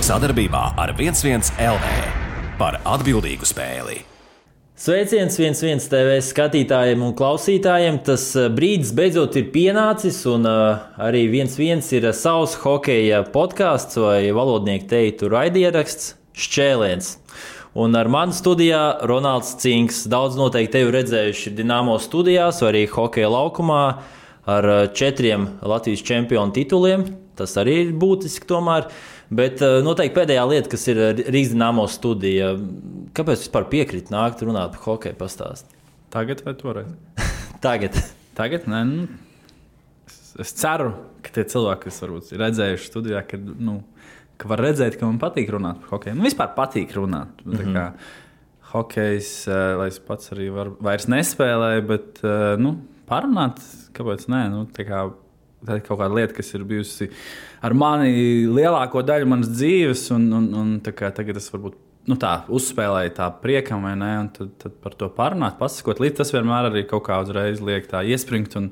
Sadarbībā ar 11 LV par atbildīgu spēli. Sveiciens 11 TV skatītājiem un klausītājiem. Tas brīdis beidzot ir pienācis, un arī 11 ir savs hokeja podkāsts vai valodnieku teiktu raidieraksts Šķēliens. Un ar mani studijā Ronalds Cinks. Daudz noteikti tevi redzējuši Dinamo studijās vai arī hokeja laukumā ar 4 Latvijas čempionu tituliem. Tas arī ir būtiski tomēr. Bet noteikti pēdējā lieta, kas ir Rīgas Dinamo studija. Kāpēc vispār piekrīt nākt runāt par hokeju pastāst? Tagad vai toreiz? Tagad? Nē, es ceru, ka tie cilvēki, kas varbūt ir redzējuši studijā, ka var redzēt, ka man patīk runāt par hokeju. Vispār patīk runāt. Kā hokejs, lai es pats arī vairs nespēlēju, bet parunāt, kāpēc nē? Tā ir kaut kāda lieta, kas ir bijusi ar mani lielāko daļu manas dzīves, un tagad es varbūt uzspēlēju tā priekam, vai ne? Un tad par to parunāt, pasakot līdz tas vienmēr arī kaut kā uzreiz liek tā iespringt un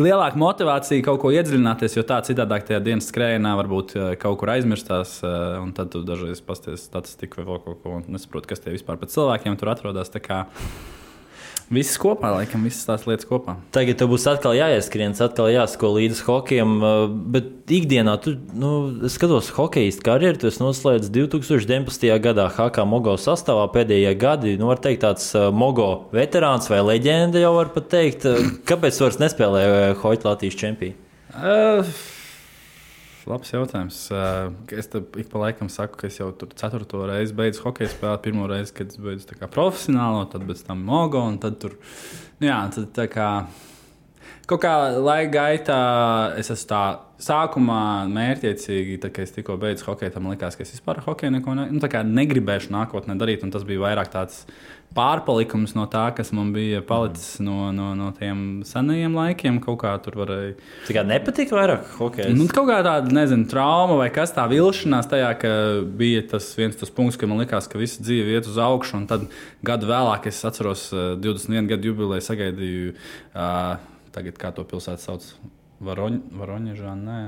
lielāka motivācija kaut ko iedziļināties, jo tā citādāk tajā dienas skrējienā varbūt kaut kur aizmirstās, un tad tu dažreiz pasties statistiku vai vēl kaut ko, un nesaproti, kas tie vispār par cilvēkiem tur atrodas. Tā kā viss kopā, laikam, visas tās lietas kopā. Tagad tev būs atkal jāieskrienas, atkal jāsako līdz hokejam, bet ikdienā es skatos hokejistu karjeru, tu esi noslēdz 2019. gadā HK Mogo sastāvā pēdējie gadi, var teikt tāds Mogo veterāns vai leģenda jau var pat teikt. Kāpēc vairs nespēlēja hoķi Latvijas čempionu? Labs jautājums. Es ik pa laikam saku, ka es jau tur 4. reizi beidzu hokeju spēlēt. Pirmo reizi, kad es beidzu profesionālo, tad bez tam Mogo, un tad tur, tad tā kā kaut kā laika gaitā es esmu tā sākumā mērķiecīgi, tad, kad es tikko beidzu hokeju, tam likās, ka es vispār hokeju neko negribēšu nākotnē darīt, un tas bija vairāk tāds pārpalikums no tā, kas man bija palicis no tiem senajiem laikiem. Kaut kā tur varēja. Tā kā nepatīk vairāk hokejs? Kaut kā tāda, trauma vai kas tā vilšanās tajā, ka bija tas punkts, ka man likās, ka visa dzīve iet uz augšu, un tad gadu vēlāk es atceros 21 gadu jubileju sagaidīju, tagad kā to pilsētu sauc, Varoņežā, nē.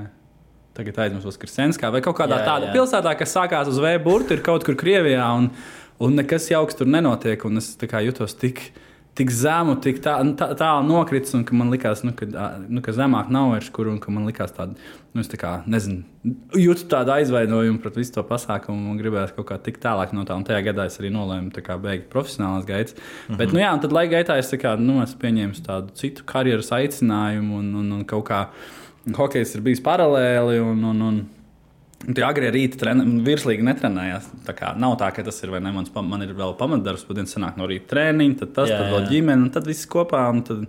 Tagad aizmirsu Voskresenskā vai kaut kādā tāda pilsētā, kas sākās uz V burtu, ir kaut kur Krievijā, un nekas jauks tur nenotiek, un es jutos tik zemu, tik tālu nokritis, un ka man likās, ka zemāk nav vairs kur, un ka man likās tāda, jūtu tādu aizvainojumu pret visu to pasākumu, un gribējās kaut kā tik tālāk no tā, un tajā gadā es arī nolēmu beigt profesionālās gaitas. Bet, un tad laika gaitā es pieņēmu tādu citu karjeras aicinājumu, un kaut kā hokejs ir bijis paralēli, un tie agrie rīta virslīgi netrenējās. Tā kā nav tā, ka tas ir vai ne, man ir vēl pamatdarbs, pat dienas sanāk no rīta trēniņi, tad tas, tad vēl ģimene, un tad viss kopā, un tad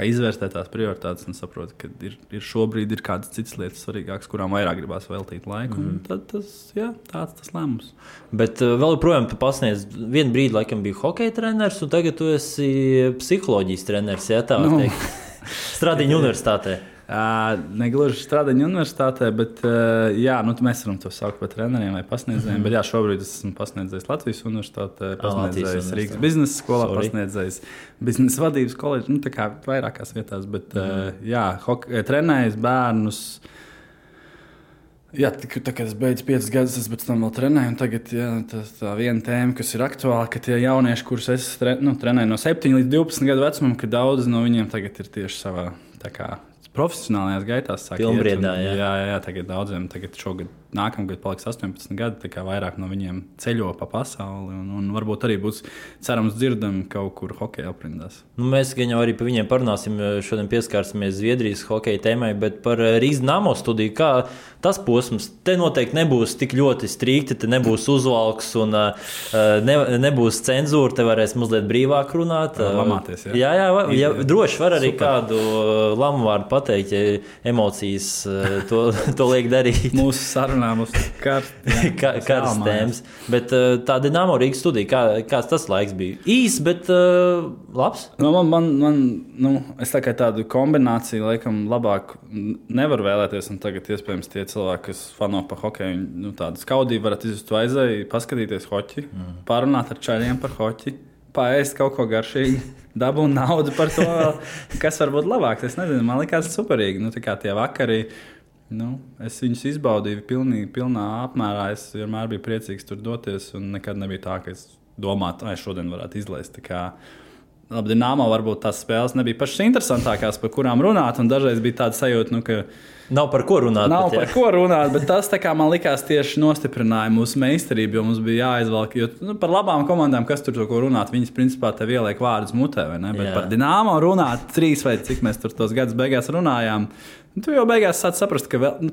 izvērstēt tās prioritātes un saprot, ka ir šobrīd ir kādas citas lietas svarīgākas, kurām vairāk gribās veltīt laiku, un tad tāds tas lēmums. Bet vēl joprojām tu pasniedz, vienu brīdi laikam bija hokeja treneris, un tagad tu esi psiholoģijas treneris, tā var teikt. Stradiņu universitātē. Negluži Stradiņu universitātē, bet mēs varam to saukt par treneriem vai pasniedzējiem. Bet šobrīd es esmu pasniedzējis Latvijas universitātē, pasniedzējis Rīgas biznesa skolā, pasniedzējis biznesa vadības koledžu, tā kā vairākās vietās. Bet trenējis bērnus. Kad es beidzu 5 gadus, es pēc tam vēl trenēju. Tagad tā viena tēma, kas ir aktuāla, ka tie jaunieši, kurus es trenēju no 7 līdz 12 gadu vecumam, ka daudzi no viņiem tagad ir tieši savā profesionālajās gaitās. Pilnbriedā, jā, tagad daudziem, šogad, nākamgad paliks 18 gadi, tā kā vairāk no viņiem ceļo pa pasauli, un varbūt arī būs cerams dzirdami kaut kur hokeja aprindās. Mēs gan jau arī par viņiem parunāsim, šodien pieskārsimies Zviedrijas hokeja tēmai, bet par Rīgas Dinamo studiju, kā tas posms, te noteikti nebūs tik ļoti strikti, te nebūs uzvalks un nebūs cenzūra, te varēs mazliet brīvāk runāt. Lamāties, jā, droši var arī kādu lamu vārdu pateikt, ja emocijas to liek darīt. Mūsu sarunā mums karstas tēmas. Bet tā Dinamo Rīgas studija, kāds tas laiks bija? Īs, bet labs? Es tādu kombināciju laikam labāk nevaru vēlēties, un tagad iespējams tie cilvēki, kas fano pa hokeju, tādu skaudību varat izjust to aizēju, paskatīties hoķi, parunāt ar čaļiem par hoķi, paēst kaut ko garšīgi, dabūt naudu par to, kas var būt labāks. Es nezinu, man likās superīgi. Tā kā tie vakari, Es viņus izbaudīju pilnā apmērā. Es vienmēr biju priecīgs tur doties, un nekad nebija tā, ka es domātu, ka šodien varētu izlaist. Labi, Dinamo varbūt tās spēles nebija pašas interesantākās, par kurām runāt, un dažreiz bija tāda sajūta, ka nav par ko runāt. Ko runāt, bet tas man likās tieši nostiprināja mūsu meistarību, jo mums bija jāizvelk. Jo, par labām komandām, kas tur to ko runāt, viņas principā tev ieliek vārdus mutē, vai ne? Bet par Dinamo runāt 3 vai cik mēs tur tos gadus beigās runājām. Tu jau beigās sāc saprast, ka vēl,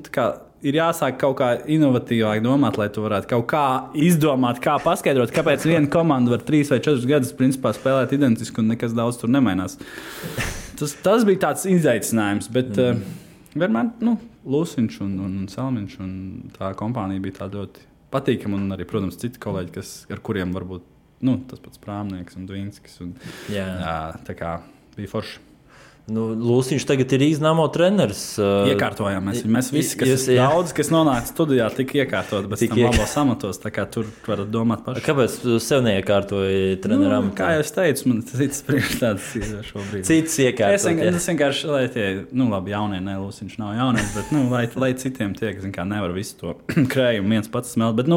ir jāsāk kaut kā inovatīvāk domāt, lai tu varētu kaut kā izdomāt, kā paskaidrot, kāpēc viena komanda var 3 vai 4 gadus principā spēlēt identiski un nekas daudz tur nemainās. Tas bija tāds izaicinājums, bet vienmēr Lūsiņš un Salmiņš un tā kompānija bija tā ļoti patīkama, un arī, protams, citi kolēģi, ar kuriem varbūt tas pats Prāmnieks un Dvīnskis. Tā kā bija forši. Lūsiņš tagad ir Dinamo treneris. Iekārtojām mēs visi, kas nonāca studijā, tika iekārtot, bet tam labos amatos, tā kā tur varat domāt paši. Kāpēc tu sev neiekārtoji treneram? Kā jau es teicu, man cits priekšstāds šobrīd. Cits iekārtot. Es vienkārši, lai tie, labi, jaunie, Lūsiņš nav jaunies, bet, lai citiem tiek, nevar visu to krējumu viens pats smelt, bet,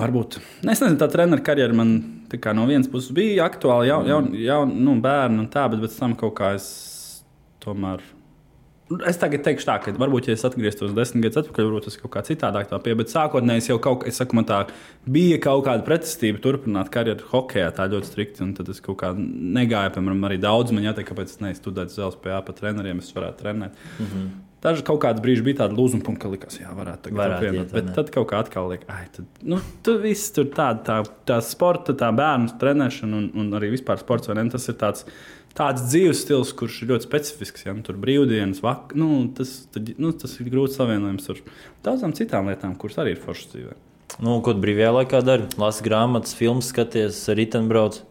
varbūt. Es nezinu, tā treneru karjera man no vienas puses bija aktuāli, bērni un tā, bet pēc tam kaut kā es tomēr. Es tagad teikšu tā, ka varbūt, ja es atgrieztos 10 gadus atpakaļ, varbūt tas kaut kā citādāk tā pie, bet sākotnēji es jau man tā bija kaut kāda pretestība turpināt karjeru hokejā tā ļoti strikti, un tad es kaut kā negāju, piemēram, arī daudz man jāteikt, kāpēc es neizstudētu uz LSPA pa treneriem, es varētu trenēt. Daži kaut kāds brīži bija tāda lūzuma punkta, ka likās, varētu apvienot. Bet tad kaut kā atkal liekas, tu viss tur tā sporta, tā bērnu trenēšana un arī vispār sports, vai ne? Tas ir tāds dzīves stils, kurš ir ļoti specifisks. Ja? Tur brīvdienas, tas ir grūti savienojams ar daudzām citām lietām, kuras arī ir foršas dzīvē. Ko tu brīvajā laikā dari? Lasi grāmatas, filmas, skaties, ritenbrauc?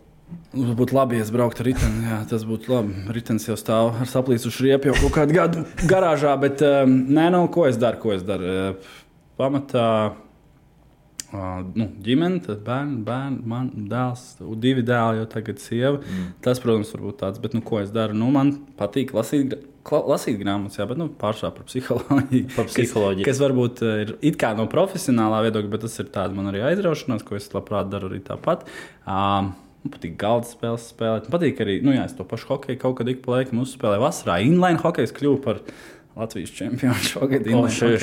Būtu labi, ja es brauktu ar riteni. Jā, tas būtu labi. Ritenis jau stāv ar saplīsušu riepu jau kaut kādu gadu garāžā, bet ko es daru? Pamatā ģimene, tad bērni, man dēls, 2 dēli, jau tagad sieva. Tas, protams, var būt tāds, bet ko es daru? Man patīk lasīt grāmatas, jā, bet pārsvarā par psiholoģiju. Kas varbūt ir it kā no profesionālā viedokļa, bet tas ir tāda man arī aizraušanās, ko es labprāt daru arī tāpat. Man patīk galda spēles spēlēt. Man patīk arī, es to pašu hokeju kaut kad ik pa laikam uzspēlēju vasarā. Inline hokejs kļuva par Latvijas čempionu šogad.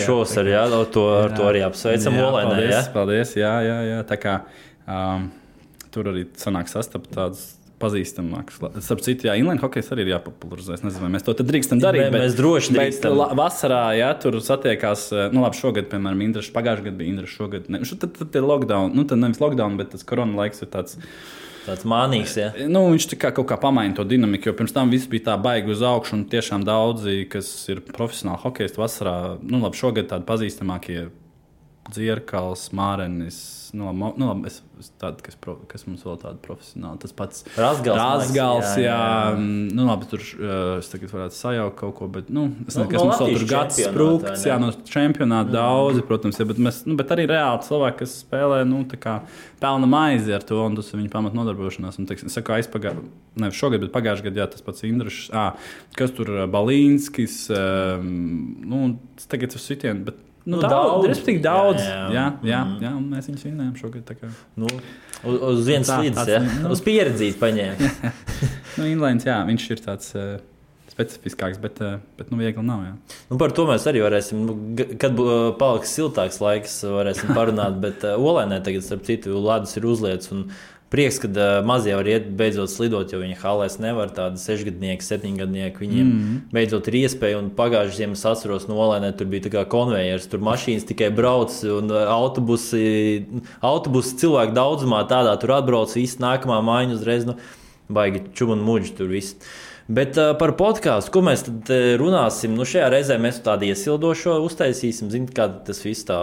Šovasar, jā, ar to arī apsveicam Olainē, jā? Paldies, jā. Tā kā tur arī sanāk sastapt tādus pazīstamākus. Starp citu, Inline hokejs arī ir jāpopularizē. Es nezinu, vai mēs to tad drīkstam darīt. Mēs droši drīkstam. Vasarā, tur satiekās, labi, šogad, piemēram, Indraša, pagājušajā gadā bija Indraša šogad. Tad ir lockdown, tad nevis lockdown, bet tas korona laiks ir tāds mānīgs, jā. Viņš kaut kā pamaina to dinamiku, jo pirms tam viss bija tā baigi uz augšu, un tiešām daudzi, kas ir profesionāli hokejisti vasarā, labi, šogad tādi pazīstamākie Dzierkals, Mārenis, kas mums vēl tāda profesionāla, tas pats Razgals, jā. Labi, tur es tagad varētu sajaukt kaut ko, bet, es nezinu, kas mums vēl tur gads sprūkts, no čempionāta daudzi, protams, bet arī reāli cilvēki, kas spēlē, tā kā pelna maizi ar to, un tas ir viņa pamat nodarbošanās, un, teiksim, nevis šogad, bet pagājušajā gadā, jā, tas pats Indrašs, kas tur Balīnskis, tagad uz sitien, bet respektīvi daudz. Jā, un mēs viņus vinējām šogad. Uz vienas slīdes, jā. Uz pieredzīt paņēma. Inlines, jā, viņš ir tāds specifiskāks, bet viegli nav, jā. Par to mēs arī varēsim, kad paliks siltāks laiks, varēsim parunāt, bet Olainē tagad, starp citu, ledus ir uzlietas, un prieks, kad mazie var iet beidzot slidot, jo viņi halēs nevar, tādi 6-gadnieki, 7-gadnieki, viņiem beidzot ir iespēja, un pagājušajā ziemas atceros no Olainē, tur bija tā kā konvejers, tur mašīnas tikai brauc, un autobusi cilvēku daudzumā tādā tur atbrauc, viss nākamā mājiņa uzreiz, baigi čum un muģi tur viss. Bet par podkāstu, ko mēs tad runāsim, šajā reizē mēs tādu iesildošo uztaisīsim, kā tas viss tā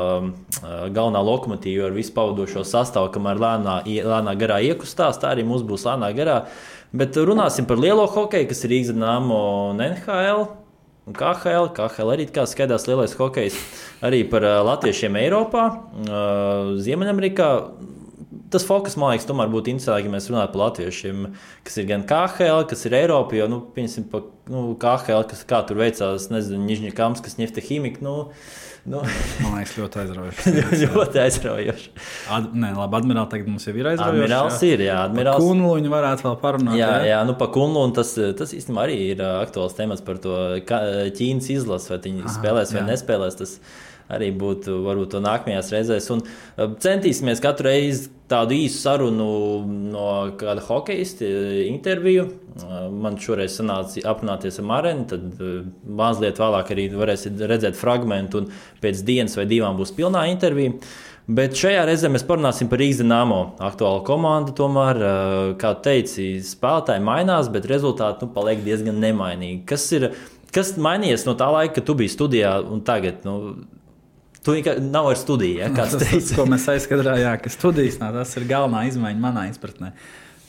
galvenā lokomotīva ar visu pavadošo sastāvu, kamēr lēnā garā iekustās, tā arī mums būs lēnā garā. Bet runāsim par lielo hokeju, kas ir Rīgas Dinamo un NHL un KHL. KHL arī kā skaidrs lielais hokejs, arī par latviešiem Eiropā, Ziemeļamerikā. tas fokus, man liekas, tomēr būtu interesanti, ja mēs runātu par latviešiem, kas ir gan KHL, kas ir Eiropa, jo, piemēram, KHL, kā tur veicās, nezinu, Nižņikamskas, Ņefteķimika, Man liekas, ļoti aizraujoši. ļoti aizraujoši. Labi, Admirāli tagad mums jau ir aizraujoši. Admirāls ir, jā. Par Kunluņu varētu vēl parunāt. Jā, pa Kunluņu tas īstenībā arī ir aktuāls temats par to Ķīnas izlases, vai viņi spēlēs vai nespēlēs. Tas arī būtu varbūt to nākamajās reizēs. Un centīsimies katru reizi tādu īsu sarunu no kāda hokejisti interviju. Man šoreiz sanāca aprunāties ar Marenu, tad mazliet vēlāk arī varēsiet redzēt fragmentu un pēc dienas vai divām būs pilnā intervija. Bet šajā reizē mēs parunāsim par Rīgas Dinamo aktuālu komandu. Tomēr, kā teici, spēlētāji mainās, bet rezultāti paliek diezgan nemainīgi. Kas mainījies no tā laika, kad tu biji studijā un tagad? Tu nav ar studiju, ja, kāds teica. Tas, ko mēs aizskatījām, ka studijas tas ir galvenā izmaiņa manā izpratnē.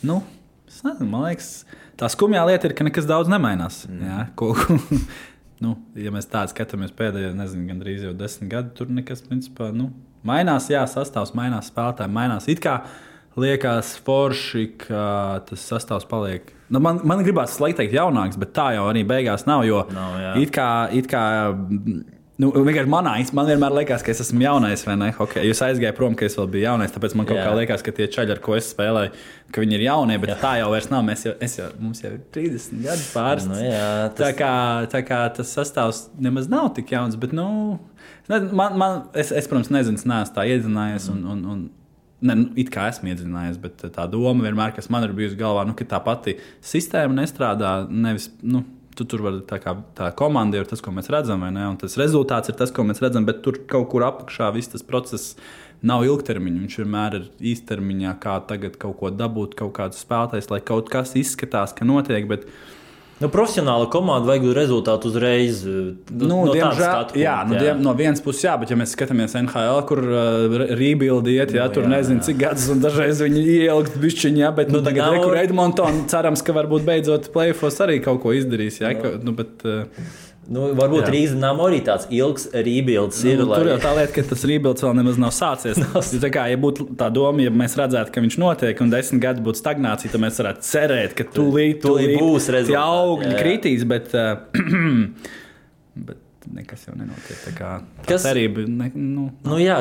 Es nezinu, man liekas, tā skumjā lieta ir, ka nekas daudz nemainās. Jā, ja mēs tādu skatāmies pēdējā, gandrīz jau 10 gadu, tur nekas, principā, mainās, sastāvs mainās, spēlētāji mainās. It kā liekas forši, ka tas sastāvs paliek. Man gribās teikt jaunāks, bet tā jau arī beigās nav, jo it kā vienkārši man vienmēr liekas, ka es esmu jaunais, vai ne? Okay, jūs aizgāju prom, ka es vēl biju jaunais, tāpēc man kaut kā liekas, ka tie čaļi, ar ko es spēlēju, ka viņi ir jaunie, bet tā jau vairs nav. Mums jau ir 30 gadi pāris. Tā kā tas sastāvs nemaz nav tik jauns, bet, es protams, nezinu, neesmu tā iedzinājies it kā esmu iedzinājies, bet tā doma vienmēr, kas man ir bijusi galvā, ka tā pati sistēma nestrādā, nevis, tur var tā komanda ir tas, ko mēs redzam, vai ne? Un tas rezultāts ir tas, ko mēs redzam, bet tur kaut kur apakšā viss tas process nav ilgtermiņa. Viņš vienmēr ir īstermiņā, kā tagad kaut ko dabūt, kaut kādus spēlētājus, lai kaut kas izskatās, ka notiek, bet profesionāla komanda vajag rezultātu uzreiz. Diemžēl, no vienas puses, bet ja mēs skatāmies NHL, kur rebuild iet, tur nezinu, cik gadus, un dažreiz viņi ielikt bišķiņā, bet tagad rekur Edmonton cerams, ka varbūt beidzot playoffs arī kaut ko izdarīs. Varbūt Rīgas Dinamo arī tāds ilgs rebuilds ir. Tur jau tā lieta, ka tas rebuilds vēl nemaz nav sācies. Ja būtu tā doma, ja mēs redzētu, ka viņš notiek un 10 gadi būtu stagnācija, tad mēs varētu cerēt, ka tūlīt būs rezultāti. Tie augļi kritīs, bet nekas jau nenotiek. Tā kā tā cerība.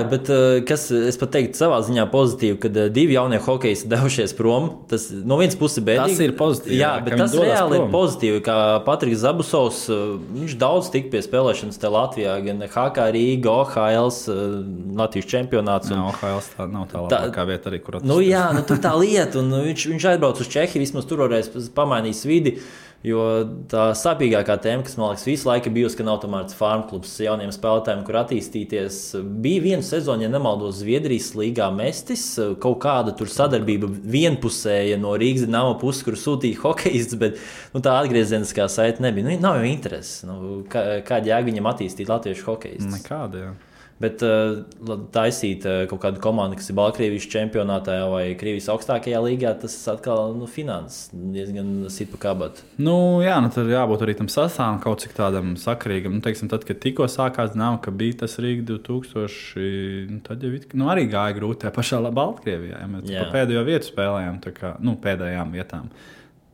Bet es pat teiktu savā ziņā pozitīvi, kad divi jaunie hokejisti devušies prom. Tas no vienas puses bēdīgi. Tas ir pozitīvi. Jā, bet tas reāli ir pozitīvi, kā Patriks Zabusovs, viņš daudz tik pie spēlēšanas te Latvijā, gan HK Rīga, OHLs, Latvijas čempionāts. OHLs tā nav tā labākā vieta arī, kur tur tā lieta, un viņš aizbrauc uz Čehiju, vismaz tur varēs pamainīt vidi. Jo tā sāpīgākā tēma, kas man liekas visu laiku bijusi, ka nav tomēr farm klubs jauniem spēlētājiem, kur attīstīties. Bija viena sezona, ja nemaldos, Zviedrijas līgā Mestis, kaut kāda tur sadarbība vienpusēja no Rīgas Dinamo puses, kur sūtīja hokejists, bet tā atgriezieniskā saite nebija. Nav jau intereses. Kāda jēga viņam attīstīt latviešu hokejistus? Nekāda, jā. Bet taisīt kaut kādu komandu, kas ir Baltkrievijas čempionātā vai Krievijas augstākajā līgā, tas atkal finanses diezgan sit pa kabatu. Tur jābūt arī tam sastāvam kaut cik tādam sakarīgam. Teiksim, tad, kad tikko sākās Dinamo, ka bija tas Rīga 2000, tad jau arī gāja grūti tajā pašā Baltkrievijā. Ja mēs pa pēdējo vietu spēlējām, pēdējām vietām.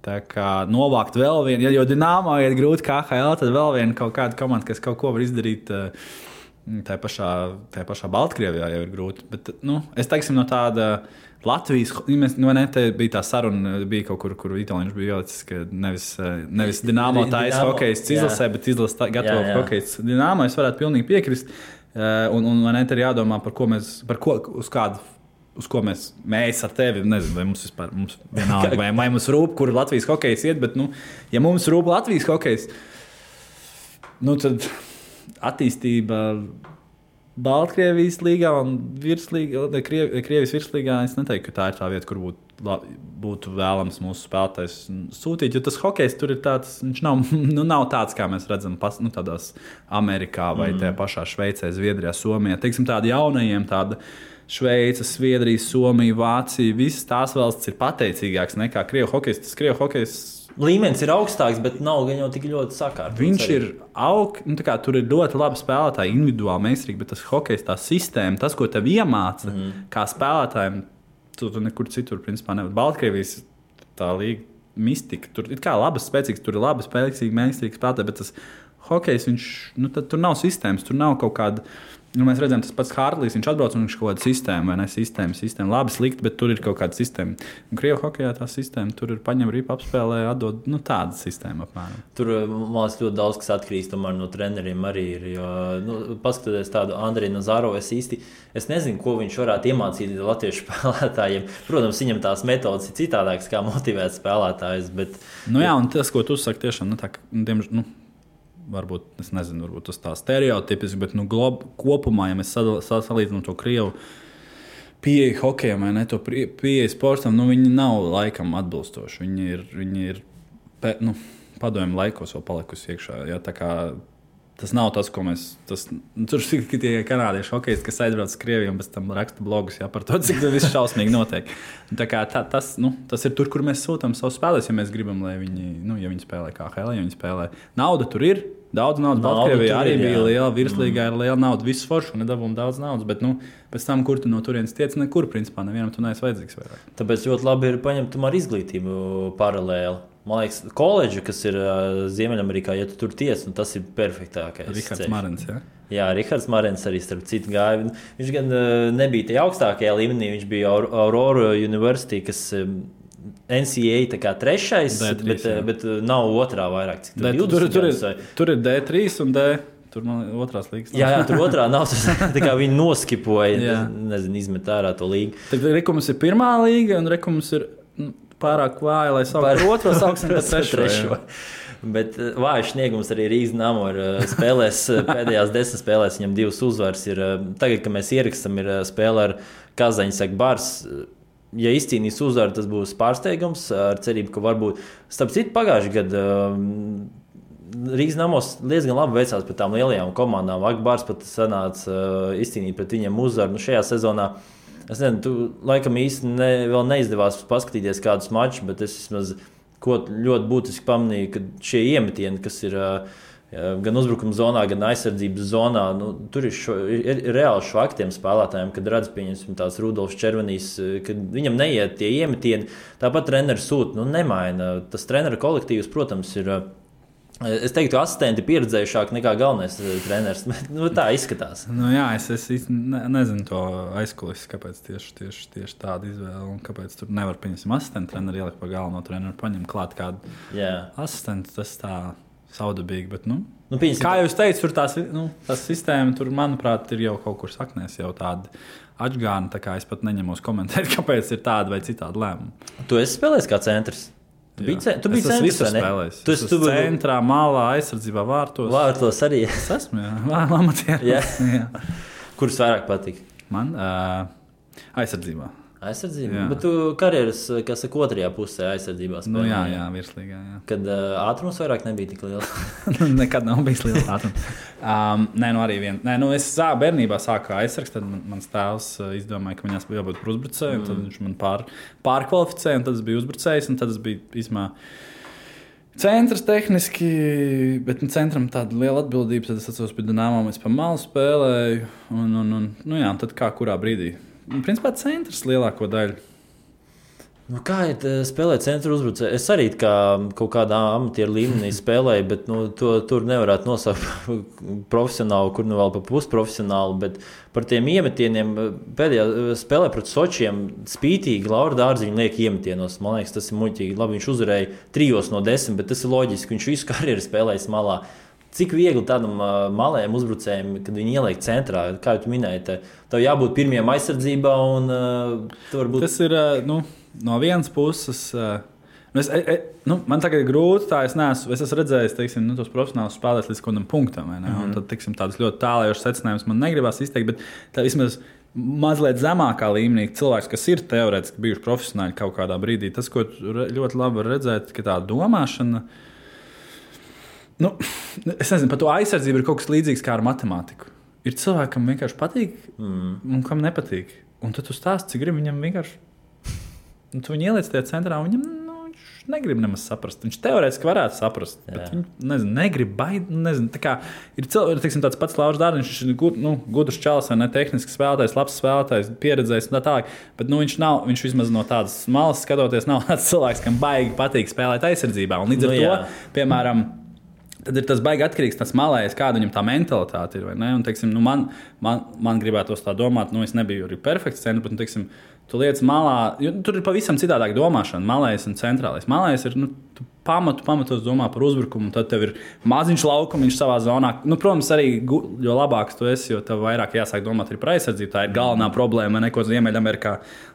Tā kā novākt vēl vienu, jo Dinamo iet grūti KHL, tad vēl viena kaut kāda komanda, kas kaut ko var izdarīt. Tā pašā Baltkrievijā jau ir grūti. Bet, es teiksim, no tāda Latvijas, te bija tā saruna, bija kaut kur Itālijā bija ielicis, ka nevis Dinamo taisa hokejists izlasē, bet izlasa gatavo hokejists Dinamo. Es varētu pilnīgi piekrist. Un te ir jādomā, uz ko mēs ar tevi, nezinu, vai mums vispār vienalga, vai mums rūp, kur Latvijas hokejs iet, bet, ja mums rūp Latvijas hokejs, tad attīstība Baltkrievijas līgā un Krievijas virslīgā, es neteiktu, ka tā ir tā vieta, kur būtu vēlams mūsu spēlētājs sūtīt, jo tas hokejs tur ir tāds, viņš nav tāds, kā mēs redzam tādās Amerikā vai tajā pašā Šveicē, Zviedrijā, Somijā. Teiksim, tādi jaunajiem, tāda Šveica, Zviedrija, Somija, Vācija, visas tās valsts ir pateicīgāks nekā Krievu hokejs. Tas Krievu hokejs līmenis ir augstāks, bet nav gan jau tik ļoti sakārtots. Viņš ir tur ir ļoti labi spēlētāji, individuāli meistarīgi, bet tas hokejs, tā sistēma, tas, ko tev iemāca kā spēlētājiem, tu nekur citur, principā, nevar. Baltkrievijas tā līga mistika, tur ir kā labas, spēcīgas, tur ir labi spēcīgi, mēkstīgi spēlētāji, bet tas hokejs, viņš, tur nav sistēmas, tur nav kaut kāda. Mēs redzam, tas pats Hārlīs, viņš atbrauc un viņš kaut kāda sistēma, vai ne? Sistēma. Labi, slikti, bet tur ir kaut kāda sistēma. Un Krievu hokejā tā sistēma, tur ir paņem ripu, apspēlē, atdod, tāda sistēma apmēram. Tur, man liekas, ļoti daudz kas atkarīgs tomēr no treneriem arī ir. Jo, paskatoties tādu Andreju Nazarovu, es nezinu, ko viņš varētu iemācīt latviešu spēlētājiem. Protams, viņam tās metodas ir citādākas, kā motivēt spēlētājus, bet... Jā, un tas, ko tu saki, tiešām, varbūt, es nezinu, varbūt tas tā stereotipiski, bet kopumā, ja mēs salīdzinām to Krievu pieeju hokejam, vai ne, to pieeju sportam, viņi nav laikam atbilstoši. Viņi ir padomju laikos vēl palikusi iekšā. Ja, tā kā tas nav tas, ko mēs... Tur ir tie kanādieši hokejisti, kas aizbrauc uz Krieviju un pēc tam raksta blogus par to, cik tas viss šausmīgi notiek. Tā kā tas ir tur, kur mēs sūtām savus spēlēs, ja mēs gribam, lai viņi, ja viņi spēlē KHL, ja viņi spēlē. Nauda tur ir, daudz naudas. Baltkrievijā arī bija liela, virslīgā ir liela nauda, visu foršu, nedabūm daudz naudas, bet pēc tam, kur tu no turienes tiec, nekur, principā, nevienam tu neesi vajadzīgs vairāk. Tāpēc ļoti labi ir paņemt tomēr izglītību paralēli. Man liekas, koledža, kas ir Ziemeļamerikā, ja tu tur tiec, tas ir perfektākais. Rihards Marens, ja? Jā, Rihards Marens arī starp citu gāja. Viņš gan nebija tajā augstākajā līmenī, viņš bija Aurora University, kas NCAA tā kā trešais, D3, bet nav otrā vairāk. Cik tur ir D3 un D. Tur man otrās līgas. Jā, tur otrā nav. Tā kā viņi noskipoja, izmet ārā to līgu. Tad Rekums ir pirmā līga un Rekums ir pārāk vāja, lai sauktu otro, sauksim par trešo. Bet vājš sniegums arī Rīgas Dynamo ir spēlēs, pēdējās 10 spēlēs viņam 2 uzvaras. Tagad, kad mēs ierakstam, ir spēle ar Kazaņas Bars. Ja izcīnīs uzvaru, tas būs pārsteigums ar cerību, ka varbūt starp citu pagājušajā gadā Rīgas Dynamos diezgan labi veicās pret tām lielajām komandām. Akbārs pat sanāca izcīnīt pret viņiem uzvaru. Šajā sezonā es nezinu, tu laikam īsti vēl neizdevās paskatīties kādus mačus, bet es vismaz ļoti būtiski pamanīju, ka šie iemetieni, kas ir gan uzbrukuma zonā, gan aizsardzības zonā, tur ir reāli švaki tiem spēlētājiem, kad redz, pieņemsim tās Rudolfs Červenīs, kad viņam neiet tie iemetieni, tāpat treneris sūta, nemaina. Tas treneru kolektīvs, protams, ir... Es teiktu, asistenti pieredzējušāk nekā galvenais treneris. Tā izskatās. Jā, es nezinu to aizkulisku, kāpēc tieši tāda izvēle un kāpēc tur nevar pieņemt asistentu treneru, ielikt par galveno treneru, paņemt klāt kādu asistentu. Tas tā saudabīgi, bet kā jūs teicat, tur tās sistēma, tur, manuprāt, ir jau kaut kur saknēs jau tāda atžgāna, tā kā es pat neņemos komentēt, kāpēc ir tāda vai citāda lēmuma. Tu esi spēlējis kā centrs? Tu biji centrs, vai ne? Tu esi centrā, malā, aizsardzībā, vārtos. Vārtos arī. Es esmu, amatieris. Kurus vairāk patīk? Man aizsardzībā. Aizsardzībā? Bet tu karjeras, kas saka, otrajā pusē aizsardzībā spēlē. Jā, virslīgā. Jā. Kad ātrums vairāk nebija tik liels? Nekad nav bijis liels ātrums. Arī vien. Es bērnībā sāku aizsargs, tad mans tēvs izdomāja, ka viņās bija jābūt par uzbrucēju, tad viņš man pārkvalificēja, un tad es biju uzbrucējs, un tad es biju īsmā centrs tehniski, bet centram tāda liela atbildība, tad es atceros pie Dynamo, es pa malu spēlēju, un tad kā kurā brīdī. Principā centrs lielāko daļu. Kā ir spēlēt centra uzbrucēju? Es arī kaut kādā amatieru līmenī spēlēju, bet tur nevarētu nosaukt profesionālu, kur vēl pa pusprofesionālu. Bet par tiem iemetieniem pēdējā spēlē pret Sočiem spītīgi Laura Dārziņa liek iemetienos. Man liekas, tas ir muļķīgi. Labi, viņš uzvarēja 3 no 10, bet tas ir loģiski. Viņš visu karjeru spēlējis malā. Cik viegli tādam malējam uzbrucējiem, kad viņi ieliek centrā, kā jūs minējāt, tev jābūt pirmajam aizsardzībā un varbūt... Tas ir, no vienas puses, man tagad ir grūti, es esmu redzējis, teiksim, tos profesionālus spēlēs līdz kādam punktam, vai ne? Un tad, teiksim, tādas ļoti tālējošas secinājumus man negribas izteikt, bet tā vismaz mazliet zemākā līmenī cilvēks, kas ir teorētiski bijuši profesionāļi kaut kādā brīdī, tas, ko ļoti labi var redzēt, ka tā domāšana, es nezinu, par to aizsardzību ir kaut kas līdzīgs kā ar matemātiku. Ir cilvēki, kam vienkārši patīk un kam nepatīk. Un tad tu stāsti, cik grib viņam vienkārši... tu viņu ieliec tajā centrā un viņam negrib nemaz saprast. Viņš teorētiski varētu saprast, bet viņš negrib baidīt. Ir tāds pats Lauris Dārziņš, viņš ir gudrs čalis, vai ne tehnisks spēlētājs, labs spēlētājs, pieredzējis un tā tālāk. Bet viņš vismaz no tādas malas skatoties, nav tāds cilvēks, kam baigi patīk spēlēt aizsardzībā. Un līdz ar to, piemēram, tad ir tas baigi atkarīgs tas malējs, kāda viņam tā mentalitāte ir. Un, teiksim, man gribētos tā domāt, es nebiju arī perfekts centrs, bet, teiksim, tu lietas malā, jo tur ir pavisam citādāk domāšana, malējs un centrālais. Malējs ir, tu pamatos domā par uzbrukumu, un tad tev ir maziņš laukumiņš savā zonā. Protams, arī, jo labāks tu esi, jo tev vairāk jāsāk domāt arī par aizsardzību. Tā ir galvenā problēma, ko Ziemeļamerikā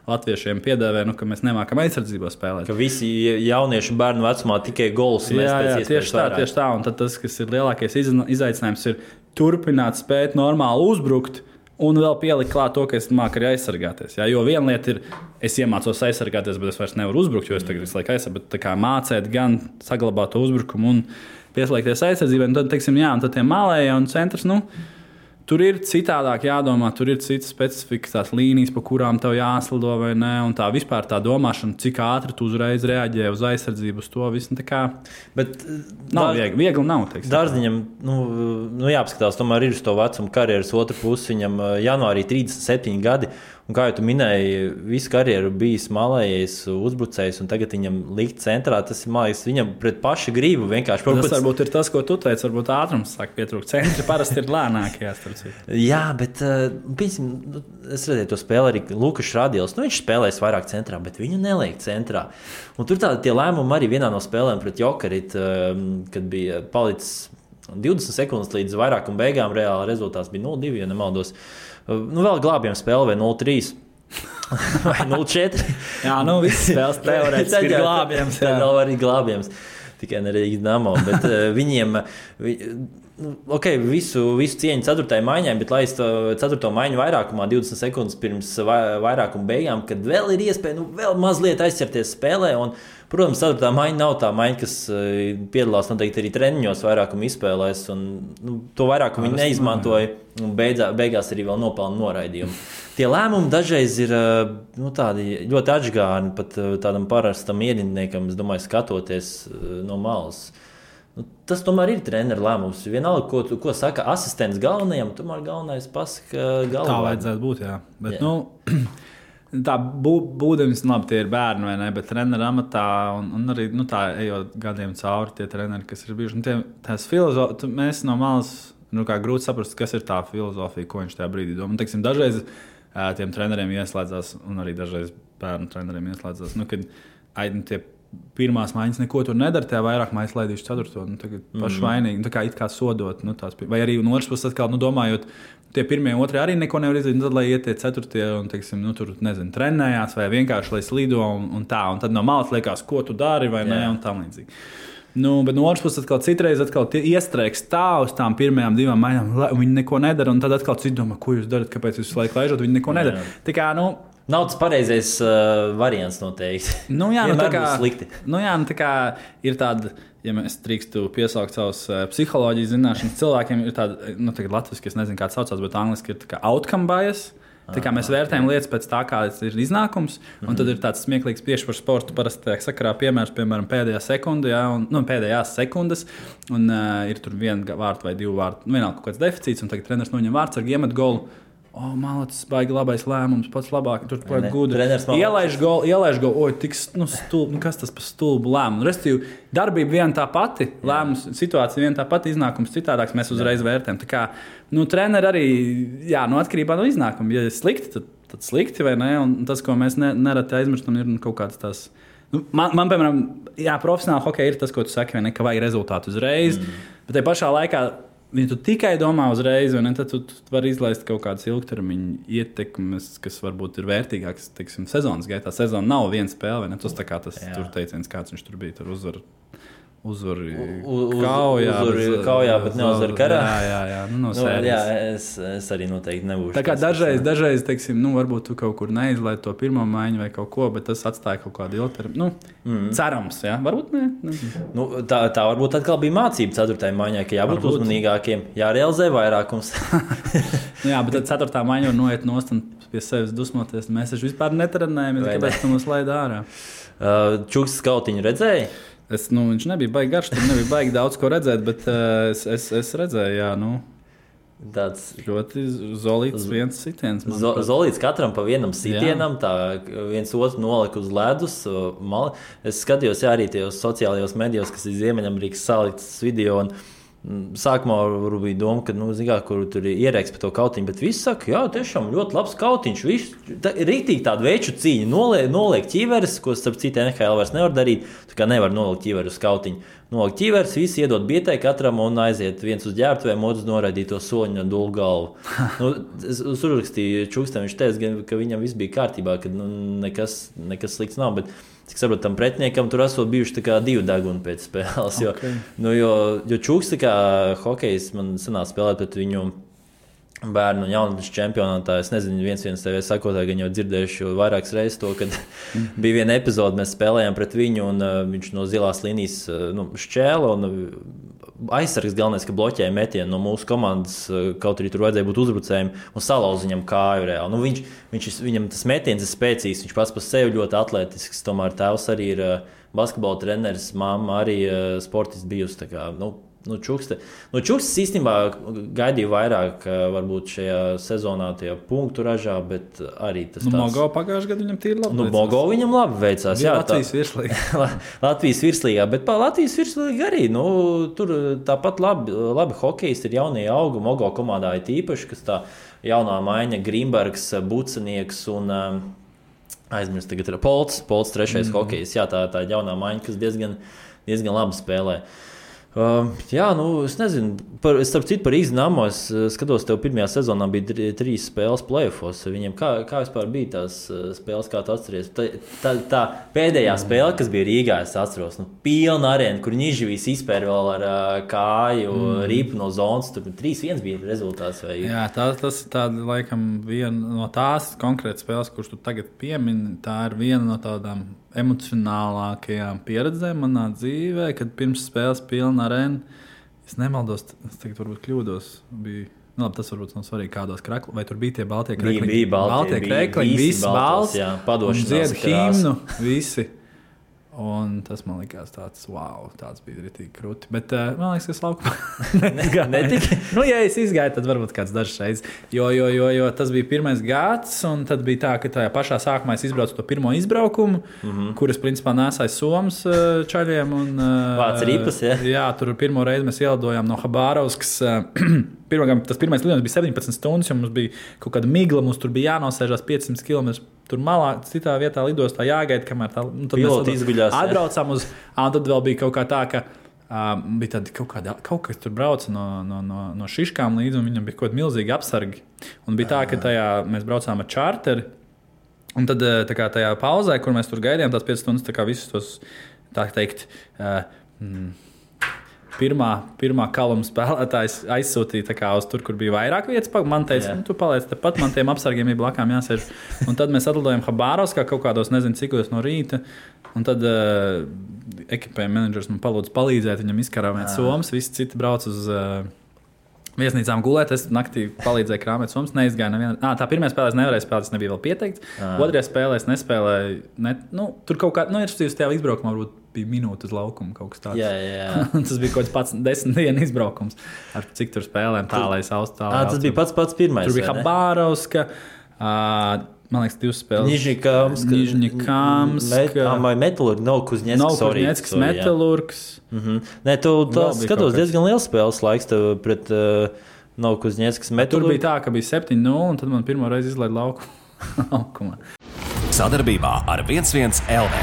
latviešiem piedēvē, ka mēs nemākam aizsardzībā spēlēt. Ka visi jaunieši bērnu vecumā tikai golus mēs pēc iespējas vairāk. Tieši tā, un tad tas, kas ir lielākais izaicinājums, ir turpināt spēt normāli uzbrukt, un vēl pielikt klāt to, ka es māku arī aizsargāties. Jā? Jo viena lieta ir, es iemācos aizsargāties, bet es vairs nevaru uzbrukt, jo es tagad visu laiku aizsargāju. Bet mācīt gan saglabāt to uzbrukumu un pieslēgties aizsardzībai. Un tad, teiksim, un tad tie malējie un centrs, tur ir citādāk jādomā, tur ir citas specifikas, tās līnijas, pa kurām tev jāslido vai ne. Un tā vispār tā domāšana, cik ātri tu uzreiz reaģē uz aizsardzību, uz to visu. Bet nav viegli nav. Dārziņam, jāapskatās, tomēr ir uz to vecumu karjeras otru pusi. Viņam janvārī 37 gadi. Un kā jau tu minēji, visu karjeru bijis malējais uzbrucējs, un tagad viņam likt centrā. Tas ir mākslinieks, viņam pret pašu gribu vienkārši. Tas varbūt ir tas, ko tu teici, varbūt ātrums sāk pietrūkt. Centri parasti ir lēnākie. Jā, bet es redzēju to spēli arī Lukas Radils. Viņš spēlēs vairāk centrā, bet viņu neliek centrā. Un tur tie lēmumi arī vienā no spēlēm pret Jokerit, kad bija palicis 20 sekundes līdz vairākuma beigām, reāli rezultāts bija 0-2, ja nemaldos. Vēl glābjam spēli vai 0-3 vai 0-4. Jā, visas spēles teorētiski ir glābjams. Tā nav arī glābjams, tikai ne Rīgas Dinamo, bet viņiem, visu cieņu 4. maiņai, bet lai es to 4. maiņu vairākumā 20 sekundes pirms vairākuma beigām, kad vēl ir iespēja vēl mazliet aizķerties spēlē, un protams, 4. maiņa nav tā maiņa, kas piedalās noteikti arī treniņos vairākumu izspēlēs, un to vairākumu viņi neizmantoja, un beigās arī vēl nopelna noraidījumu. Tie lēmumi dažreiz ir tādi ļoti atžgārni, pat tādam parastam ierindniekam, es domāju, skatoties no malas. Tas tomēr ir treneru lēmums. Vienalga, ko saka asistents galvenajam, tomēr galvenais pasaka galvenajam. Tā vajadzētu būt, jā. Bet, tā būdams, labi, tie ir bērni, vai ne, bet treneru amatā un arī tā ejot gadiem cauri tie treneri, kas ir bijuši. Tās filozofijas, mēs no malas, kā grūti saprast, kas ir tā filozofija, ko viņš tajā brīdī domā. Teiksim, dažreiz tiem treneriem ieslēdzās, un arī dažreiz bērnu treneriem ieslēdzās, kad tie pirmās maiņas neko tur nedara, tajā vairāk maiņas laidīšu 4. Tagad paši vainīgi, tā kā it kā sodot, vai arī no otras puses atkal, domājot, tie 1. un 2. arī neko nevar izdarīt, tad, lai iet tie 4. un, teiksim, tur, nezinu, trenējās, vai vienkārši, lai slido un tā, un tad no malas liekas, ko tu dari, vai ne, un tam līdzīgi. Bet no otras puses atkal citreiz iestrēgs tā uz tām 1. 2 maiņām, viņi neko nedara, un tad atkal citi domā, ko jūs darat, kāpēc jūs visu laiku laižat, viņi neko nedara. Tā kā, nav tas pareizais variants noteikti. Tā kā slikti. Tā kā ir tāda, ja mēs drīkstu piesaukt savus psiholoģijas zināšanas cilvēkiem, ir tāda, tagad latviski, es nezinu, kā tas saucās, bet angliski ir tā kā outcome bias. Tā kā mēs vērtējam lietas pēc tā, kāds ir iznākums, un tad ir tāds smieklīgs tieši par sportu. Parasti tajā sakarā piemēram, pēdējās sekundes, un ir tur 1 vārtu vai 2 vārtu, vienalga kaut kāds deficīts, un tagad treneris noņem vārdsargu, iemet golu. Malacis, baigi labais lēmums, pats labāk, tur pēc gudri. Ielaiž golu, kas tas par stulbu lēmumu? Restīvi, darbība viena tā pati, lēmums, situācija viena tā pati, iznākums citādāks, mēs uzreiz vērtējam. Tā kā, treneri arī, atkarībā no iznākuma, ja ir slikti, tad slikti, vai ne? Un tas, ko mēs nereti aizmirstam, ir kaut kāds tās. Man piemēram, profesionāli hokeja ir tas, ko tu saki, vai ne, ka vajag rezultātu uzreiz, bet tajā pašā laikā, ja tu tikai domā uzreiz, tad tu vari izlaist kaut kādas ilgtermiņa ietekmes, kas varbūt ir vērtīgākas, sezonas gaitā. Sezona nav viena spēle, vai ne? Tas tā kā tas tur teiciens, kāds viņš tur bija, tur uzvar uzvari kaujā, bet neuzvar karā. Jā, no sērijas. Jā, es arī noteikti nebūšu. Tā kā dažreiz teiksim, varbūt tu kaut kur neizlaid to pirmo maiņu vai kaut ko, bet tas atstāja kaut kādu ilgtermiņu. Cerams, jā, varbūt ne. Tā varbūt atkal bija mācība 4. maiņai, ka jābūt uzmanīgākiem, jārealizē vairākums. Jā, bet tad 4. maiņa var noiet nost un pie sevis dusmoties. Mēs taču vispār netrenējam, kāpēc tu mums laid ārā. Čukstas kautiņu redzēji? Viņš nebija baigi garš, tur nebija baigi daudz ko redzēt, bet es redzēju, jā, tāds ļoti zolīts viens sitiens. Zolīts katram pa vienam sitienam, tā viens otru nolika uz ledus. Es skatījos arī tajos sociālajos medijos, kas ir Ziemeļamerikas saliktas video. Sākumā bija doma, ka, kur tur ir ierēks par to kautiņu, bet visi saka, jā, tiešām ļoti labs kautiņš. Rītīgi tādu veču cīņu noliek ķīveres, ko starp citu NHL vairs nevar darīt. Tā kā nevar nolikt ķīveru uz kautiņu. Nolikt ķīveres, visi iedod bietē katram un aiziet viens uz ģērbtuvēm, otrs noraidīt to soliņu un dulu galvu. Es uzrakstīju Čukstam, viņš teica, ka viņam viss bija kārtībā, ka nekas slikts nav, bet cik saprotu, tam pretiniekam tur esot bijuši 2 deguni pēc spēles. Jo Čuks, kā hokejs, man sanāca spēlēt pret viņu bērnu un jaunatnes čempionātā. Es nezinu, viens TV sakotāji, gan jau dzirdējuši vairākas reizes to, kad bija viena epizode, mēs spēlējām pret viņu un viņš no zilās līnijas šķēla un aizsargs galvenais, ka bloķēja metienu no mūsu komandas, kaut arī tur vajadzēja būt uzbrucējiem un salauza viņam kāju reāli. Viņam tas metiens ir spēcīgs, viņš pats par sevi ļoti atletisks, tomēr tēvs arī ir basketbola treneris, mamma arī sportists bijusi, tā kā, Čukstas īstenībā gaidīja vairāk varbūt šajā sezonā tie punktu ražā, bet arī tas tāds... Mogo pagājušajā gadā viņam tīri labi veicās. Mogo viņam labi veicās, jā. Latvijas virslīgā. Latvijas virslīgā, bet pa Latvijas virslīgā arī, tur tāpat labi hokejs ir jaunie augi, Mogo komandā ir tīpaši, kas tā jaunā maiņa Grimbergs, Bucenieks un... aizmirst tagad ir Polts 3. hokejs, jā, tā jaunā maiņa, kas diezgan labi spēlē. Es nezinu, starp citu par Ignamo, es skatos, tev pirmajā sezonā bija 3 spēles play-offos. Viņiem kā vispār bija tās spēles, kā tu atceries? Tā pēdējā spēle, kas bija Rīgā, es atceros, pilna arēna, kur Niživīs izpēr vēl ar kāju rīpu no zonas, tur 3-1 bija rezultāts. Vai... Jā, tas ir tāda, laikam, viena no tās konkrētas spēles, kurš tu tagad piemini, tā ir viena no tādām emocionālākajām pieredzēm manā dzīvē, kad pirms spēles pilna arēna. Es nemaldos, es tagad varbūt kļūdos. Tas varbūt nav svarīgi, kādos kreklos. Vai tur bija tie baltie krekliņi? Bija baltie krekliņi, visi balts. Jā, padošanās dzied himnu, visi. Un tas man likās tāds, wow, tāds bija ritīgi krūti. Bet man liekas, ka es laukumā netika. Ja es izgāju, tad varbūt kāds dažs reizes. Jo tas bija pirmais gads, un tad bija tā, ka tajā pašā sākumā es izbraucu to pirmo izbraukumu, kuras principā nesāja Somas čaļiem. Vāc ripas, ja? Jā, tur pirmo reizi mēs ielidojām no Habārovskas. Tas pirmais lidojums bija 17 stundas, jo mums bija kaut kāda migla, mums tur bija jānosēžās 500 km. Tur malā, citā vietā lidostā jāgaida, kamēr tā piloti izguļās. Atbraucām un tad vēl bija kaut kā tā, ka bija tādi kaut kas tur brauca no šiškām līdzi, un viņam bija kaut kādi milzīgi apsargi. Un bija tā, ka mēs braucām ar čārteri, un tad tajā pauzē, kur mēs tur gaidījām tās 5 stundas, tā kā visus tos, tā teikt, pirmā kaluma spēlētājs aizsūtīja uz tur, kur bija vairāk vietas. Man teica, tu paliec tepat, man tiem apsargiem ir blakām jāsēž. Un tad mēs atlidojam Habārovskā kaut kādos, nezinu, cikos no rīta. Un tad ekipējuma menedžers man palūdza palīdzēt viņam izkarāvēt somas. Visi citi brauc uz viesnīcām gulēt. Es naktī palīdzēju krāmēt somas, neizgāju nevienu. Tā pirmā spēlē es nevarēju spēlēt, tas nebija vēl pieteikts. Otrajā spēlē es nespēlēju. Tur kaut kā, ir tajā izbraukumā varbūt bija minūte uz laukumu kaut kas tāds. Jā. Tas bija kaut kāds 10 dienu izbraukums. Ar cik tur spēlēm tālais Austrālijā. Tas bija pats pirmais. Tur bija Habārovska, man liekas, 2 spēles. Nižņikamska. Metalurgs, Novkuznetsks, Metalurgs. Nē, tu skatos diezgan liels spēles laiks tev pret Novkuznetsks, Metalurgs. Tur bija tā, ka bija 7-0, un tad man pirmo reizi izlaid laukumā. Sadarbībā ar 11 LV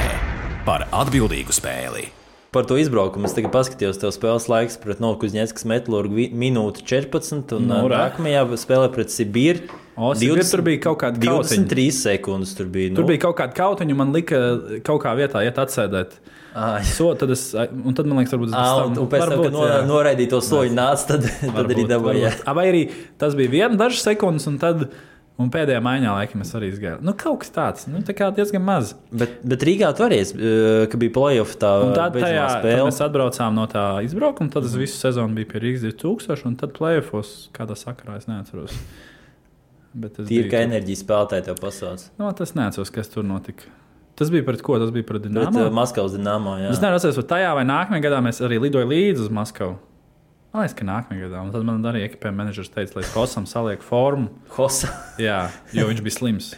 par atbildīgu spēli. Par to izbraukumu es tagad paskatījos, tev spēles laiks pret Novokuzņeckas Metalurgu minūte 14, un nākamajā spēlē pret Sibīru. Tur bija kaut kāda 23 sekundes. Tur bija kaut kāda kautiņa, man lika kaut kā vietā iet atsēdēt. Un tad man liekas, varbūt un pēc tam, kad noraidīja to soļu nāca, tad arī dabūja. Vai arī tas bija dažas sekundes, un pēdējā maiņā laikam es arī izgāju. Kaut kas tāds, tā kā diezgan maz. Bet Rīgā tu arī, ka bija play-off tā beidzamā spēle. Tad mēs atbraucām no tā izbraukuma, tad es visu sezonu biju pie Rīgas 2000, un tad play-offos kādā sakarā es neatceros. Tīri, ka enerģijas spēlētāji tev pasauc. Tas neatceros, kas tur notika. Tas bija pret ko? Tas bija pret Dinamo? Pret Maskavas Dinamo, jā. Es nevaru atceros, vai tajā vai nākamajā gadā mēs arī lidoju līdzi uz Maskavu. Man liekas, ka nākamajā gadā. Un tad man arī ekipējuma menedžers teica, lai Hosam saliek formu. Hosa? Jā, jo viņš bija slims.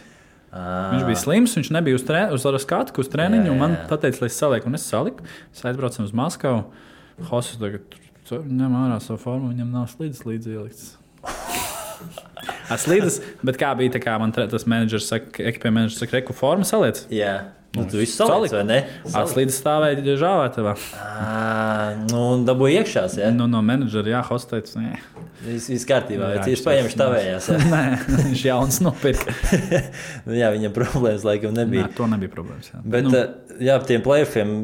Viņš bija slims, viņš nebija uz skatu, uz treniņu, un man pateica, lai es salieku. Un es saliku, mēs aizbraucam uz Maskavu. Hosas tagad ņem ārā savu formu, viņam nav slīdes līdzi ielikts. Slīdes, bet kā bija, tā kā man tas menedžers saka, ekipējuma menedžers saka, reku formu saliec? Jā. Tu visu saliec, vai ne? Slīdes stāvēja žāvētavā. Un dabūja iekšās, jā? No menedžera, jā, Hosts teica, nē. Viss kārtībā, viņš paņemš tavējās. Nē, viņš jauns nopirka. Jā, viņam problēmas laikam nebija. Nē, to nebija problēmas, jā. Bet, jā, tiem play-offiem,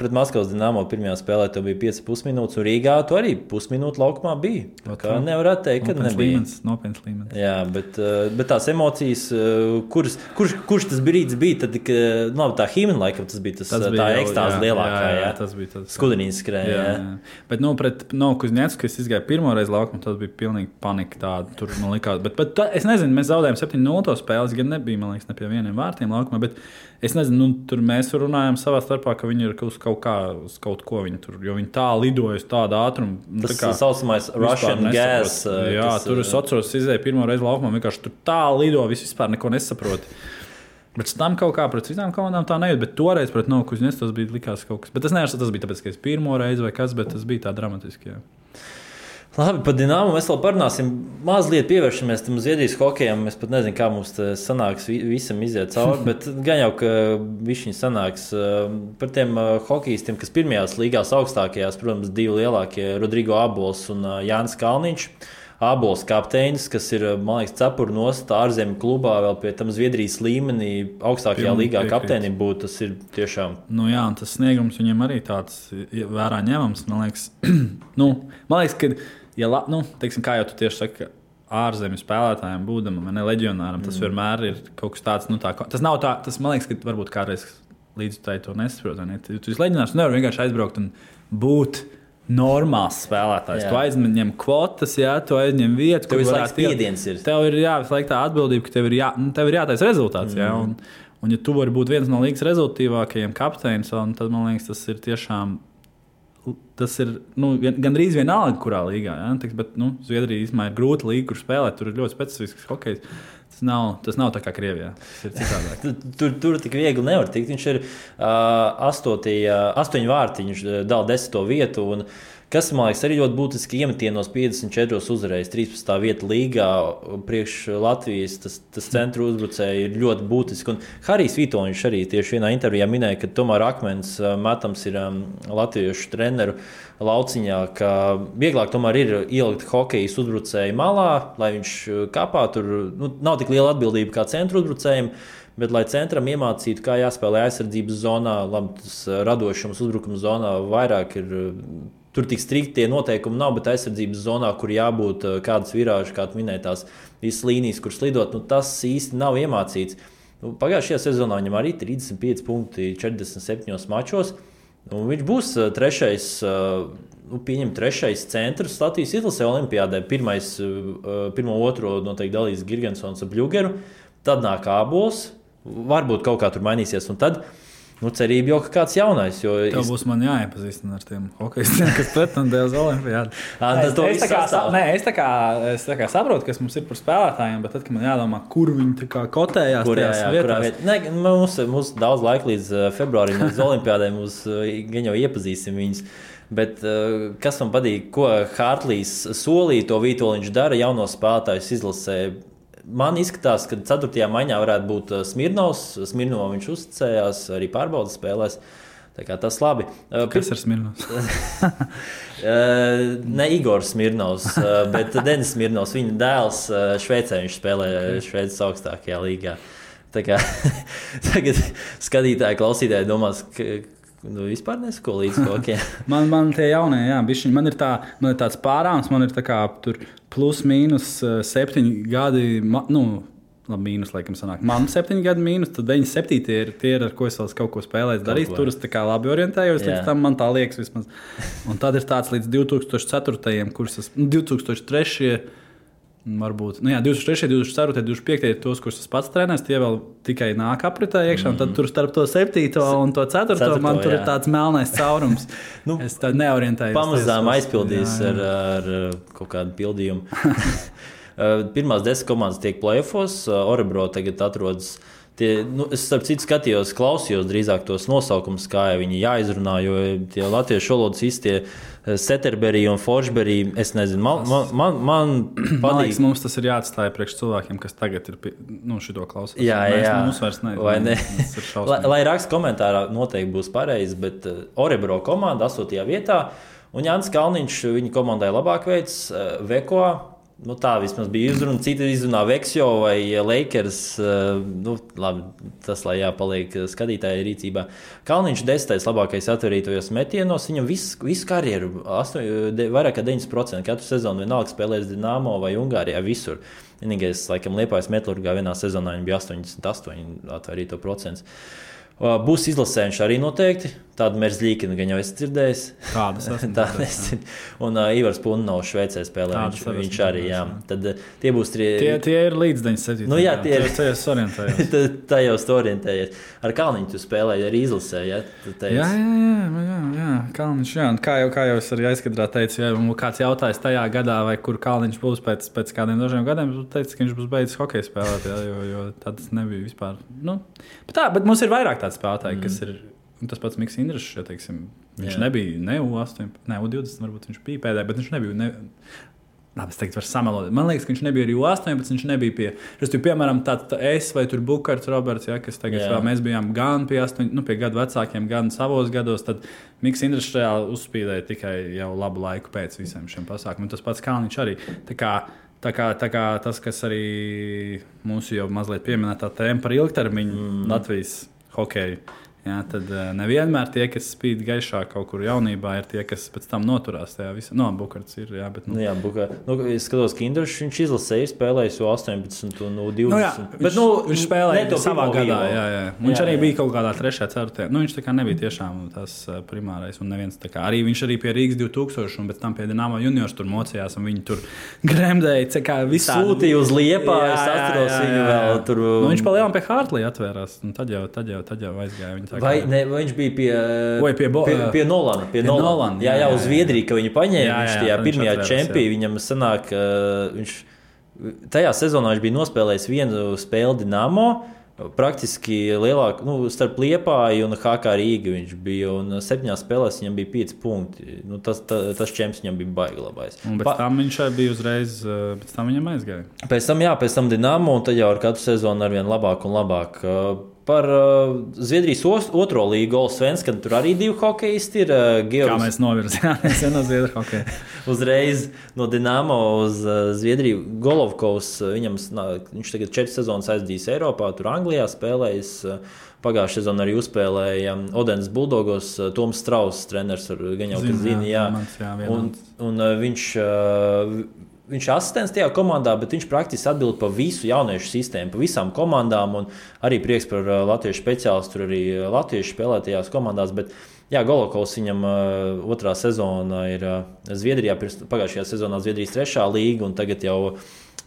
pret Maskavas Dinamo pirmajā spēlē tev bija 5,5 minūtes, un Rīgā tu arī pusminūte laukumā bija. Kā nevarētu teikt, ka nebija. Nopietns līmenis. Jā, bet tās emocijas, kurš tas brīdis bija, tad, tā himna laikam tas bija tā ekstāze lielākā, jā. Tas bija tas. Skudinīs skrēja, jā. Bet, pret Novokuzņecku, kad es izgāju pirmo reizi laukumu, tas bija pilnīgi panika tāda. Tur man likās, bet es nezinu, mēs zaudējām 7-0 to spēles, gan nebija, man liekas, ne pie vieniem vārtiem laukumā, bet es nezinu, tur mēs runājām savā starpā, ka viņi ir uz kaut ko viņi tur, jo viņi tā lidoja uz tādu ātrumu. Tas saucamais Russian gas. Jā, tur es atceros, izēju pirmo reizi laukumā, vienkārši tur tā lido, vispār neko nesaproti. Bet tam kaut kā pret citām komandām tā nejūt, bet toreiz pret Novokuzņecku tas bija likās kaut kas. Bet es neesmu, tas bija tāpēc, ka es pirmo reizi vai kas, bet tas bija tā dramatiski, jā. Labi, par Dinamo mēs vēl parunāsim. Mazliet pievēršamies tam Zviedrijas hokejam. Es pat nezinu, kā mums sanāks visam iziet cauri, bet gan jau, ka višķiņi sanāks par tiem hokejistiem, kas pirmajās līgās augstākajās, protams, divi lielākie, Rodrigo Abols un Jānis Kalniņš. Abols kapteinis, kas ir, man liekas, cepuru nost ārzemju klubā, vēl pie tam Zviedrijas līmenī augstākajā līgā kapteinim būt, tas ir tiešām. Jā, un tas sniegums viņam arī tāds vērā ņemams, man liekas. Man liekas, ka, teiksim, kā jau tu tieši saki, ārzemju spēlētājiem būdam, ne leģionāram, tas vienmēr ir kaut kas tāds, tas nav tā, tas man liekas, ka varbūt kādreiz līdz tai to nesaprot, ne? Tu leģionārs nevar vienkārši aizbraukt un būt normāls spēlētājs. Tu aizņem kvotas, jā, tu aizņem vietu. Tev visu laiku spiediens ir. Tev ir visu laiku tā atbildība, ka tev ir jātaisa rezultāts. Jā, un ja tu vari būt viens no līgas rezultātīvākajiem kapteinis, tad man liekas, tas ir tiešām, gandrīz vienalga, kurā līgā. Jā, bet Zviedrija īstenībā ir grūta līga, kur spēlēt. Tur ir ļoti specifisks hokejs. Tas nav tā kā Krievijā. Tas ir citādāk. Tur tik viegli nevar tikt. Viņš ir 8 vārti, viņš dala 10. vietu. Un, kas, man liekas, arī ļoti būtiski iemetienos 54 uzvarējis, 13. vieta līgā priekš Latvijas. Tas centru uzbrucēji ir ļoti būtiski. Un Harijs Vitoņš arī tieši vienā intervijā minēja, ka tomēr akmens metams ir latviešu treneru lauciņā, ka vieglāk tomēr ir ielikt hokejas uzbrucēju malā, lai viņš kapā. Tur nav tik liela atbildība kā centru uzbrucējiem, bet lai centram iemācītu, kā jāspēlē aizsardzības zonā, labi, tas radošums uzbrukuma zonā vairāk ir. Tur tik strikti tie noteikumi nav, bet aizsardzības zonā, kur jābūt kādas virāžas, kā tu minēji, tās visas līnijas, kur slidot, tas īsti nav iemācīts. Pagājušajā sezonā viņam arī 35 punkti 47 mačos. Viņš būs trešais centrs Latvijas izlasē olimpiādē. Pirmo otro noteikti dalīs Girgensons ar Bļugeru, tad nāk Abols, varbūt kaut kā tur mainīsies, un tad cerība jau ka kāds jaunais. Tev būs man jāiepazīstina ar tiem hokejistiem, kas pretendēja uz olimpiādu. Es tā kā saprotu, kas mums ir par spēlētājiem, bet tad, kad man jādomā, kur viņi tā kā kotējās tajās vietās. Mums daudz laika līdz februārim, līdz olimpiādai, mums gan jau iepazīsim viņus. Bet kas man patīk, ko Hārtlīs solīja, to Vītoliņš dara jauno spēlētājus izlasē. Man izskatās, ka 4. maiņā varētu būt Smirnovs. Smirnovam viņš uzticējās arī pārbaudas spēlēs. Tā kā tas labi. Kas ir Smirnovs? Ne Igors Smirnovs, bet Denis Smirnovs. Viņa dēls Šveicē, viņš spēlē Šveices augstākajā līgā. Tā kā tagad skatītāji, klausītāji domās, ka vispār nesako līdz hokeja. man tie jaunie, jā, bišķiņ, man ir tāds pārāms, man ir tā kā tur plus mīnus 7 gadi, labi, mīnus, laikam, sanāk. Man 7 gadi mīnus, tad 97 tie ir, ar ko es vēl kaut ko spēlēju, darīju. Tur es tā kā labi orientējos, līdz tam man tā liekas vismaz. Un tad ir tāds līdz 2004. Kurus es, 2003. Varbūt, 2003, 2004, 2005 ir tos, kurus es pats trenēju, tie vēl tikai nāk apritē iekšā, un tad tur starp to 7. un to 4. man tur ir tāds melnais caurums. Es tā neorientējos. Pamazām aizpildījis ar kaut kādu pildījumu. Pirmās 10 komandas tiek play-offos, Orebro tagad atrodas. Es starp citu skatījos, klausījos drīzāk tos nosaukumus, kā viņi jāizrunā, jo tie latviešu valodas īstie Setterberī un Forsberī, es nezinu, man patīk. Liekas, mums tas ir jāatstāja priekš cilvēkiem, kas tagad ir šito klausās. Jā. Mums vairs ne. Lai raksta komentārā noteikti būs pareizi, bet Orebro komanda 8. vietā, un Jānis Kalniņš viņa komandai labāk veids, Veko. Tā vismaz bija izruna. Citi izrunā Veksjo vai Lakers. Labi, tas lai jāpaliek skatītāja rīcībā. Kalniņš 10. labākais atverītojos metienos. Viņam visu karjeru, vairāk kā 90%, katru sezonu vienalga spēlēs Dinamo vai Ungārijā, visur. Vienīgais, laikam, Liepājas Metlurgā vienā sezonā viņa bija 88 atverīto procents. Būs izlasē viņš arī noteikti. Tādu Merzļīkinu gan jau esmu dzirdējis. Tādas un Ivars Punovs Šveicē spēlē. Viņš arī, jā. Tad tie būs tie ir līdz 97. Jā, tie ir. Tajos orientējies. Tajos orientējies. Ar Kalniņu tu spēlēji arī izlasē, ja? Jā. Kalniņš, jā. Kā jau es arī aizkadrā teicu, ja kāds jautājis tajā gadā, vai kur Kalniņš būs pēc kādiem dažiem gadiem, tu teici, ka viņš būs beidzis hokeju spēlēt, jo tāds nebija vispār. Bet mums ir vairāk tādi spēlētāji, kas ir. Tas pats Miks Indrišs, ja teiksim, viņš nebija ne U18, ne U20, varbūt viņš bija pēdējā, bet viņš nebija. Labi, es teiktu, var samelot. Man liekas, ka viņš nebija arī U18, viņš nebija pie. Piemēram, es vai tur Bukarts Roberts, ja, kas tagad vēl mēs bijām gan pie 8, pie gadu vecākiem, gan savos gados, tad Miks Indrišs reāli uzspīdēja tikai jau labu laiku pēc visiem šiem pasākumiem. Tas pats Kalniņš arī. Tā kā tas, kas arī mūsu jau mazliet pieminētā tēma par ilgtermiņu Latvijas hokeju. Jā, tad nevienmēr tie, kas spīd gaišā kaut kur jaunībā, ir tie, kas pēc tam noturās tajā visā. Bukarts ir, jā, bet... Es skatos, ka Indrišs viņš izlasēja, spēlējis U18 un U20. Viņš spēlēja savā gadā, jā. Viņš arī bija kaut kādā 3. 4. Viņš tā kā nebija tiešām tas primārais un neviens tā kā. Arī viņš arī pie Rīgas 2000 un pēc tam pie Dinamo juniors tur mocījās un viņi tur gremdēja, kā visādi. Sūtīja uz Liepāju, es atceros viņu vēl tur. Viņš pa lielām pie Hartley atvērās, un tad jau aizgāja viņi. Vai viņš bija pie Nolana? Jā, uz Zviedriju, ka viņu paņēma. Viņš tajā pirmajā čempī, viņam sanāk, tajā sezonā viņš bija nospēlējis vienu spēli Dinamo, praktiski lielāk, starp Liepāju un HK Rīga viņš bija, un 7 spēlēs viņam bija 5 punkti. Tas čemps viņam bija baigi labais. Un pēc tam viņš bija uzreiz, pēc tam viņam aizgāja. Pēc tam Dinamo, un tad jau ar katru sezonu arvien labāk un labāk. Par Zviedrijas otro līgu Allsvenskan, tur arī 2 hokeisti ir. Kā mēs novirzījāmies no Zviedru hokeja. Uzreiz no Dinamo uz Zviedriju. Golovkovs, viņš tagad 4 sezonas aizdījis Eiropā, tur Anglijā spēlējis. Pagājušajā sezonā arī uzspēlēja Odenes Buldogos, Toms Strauss, treneris, gan jau, kas zina, jā. Un viņš ir asistents tajā komandā, bet viņš praktiski atbild par visu jauniešu sistēmu, par visām komandām. Un arī prieks par latviešu speciālistu, tur arī latviešu spēlētajās komandās. Bet, jā, Golovkovs viņam otrā sezona ir Zviedrijā, pagājušajā sezonā Zviedrijas 3. līga un tagad jau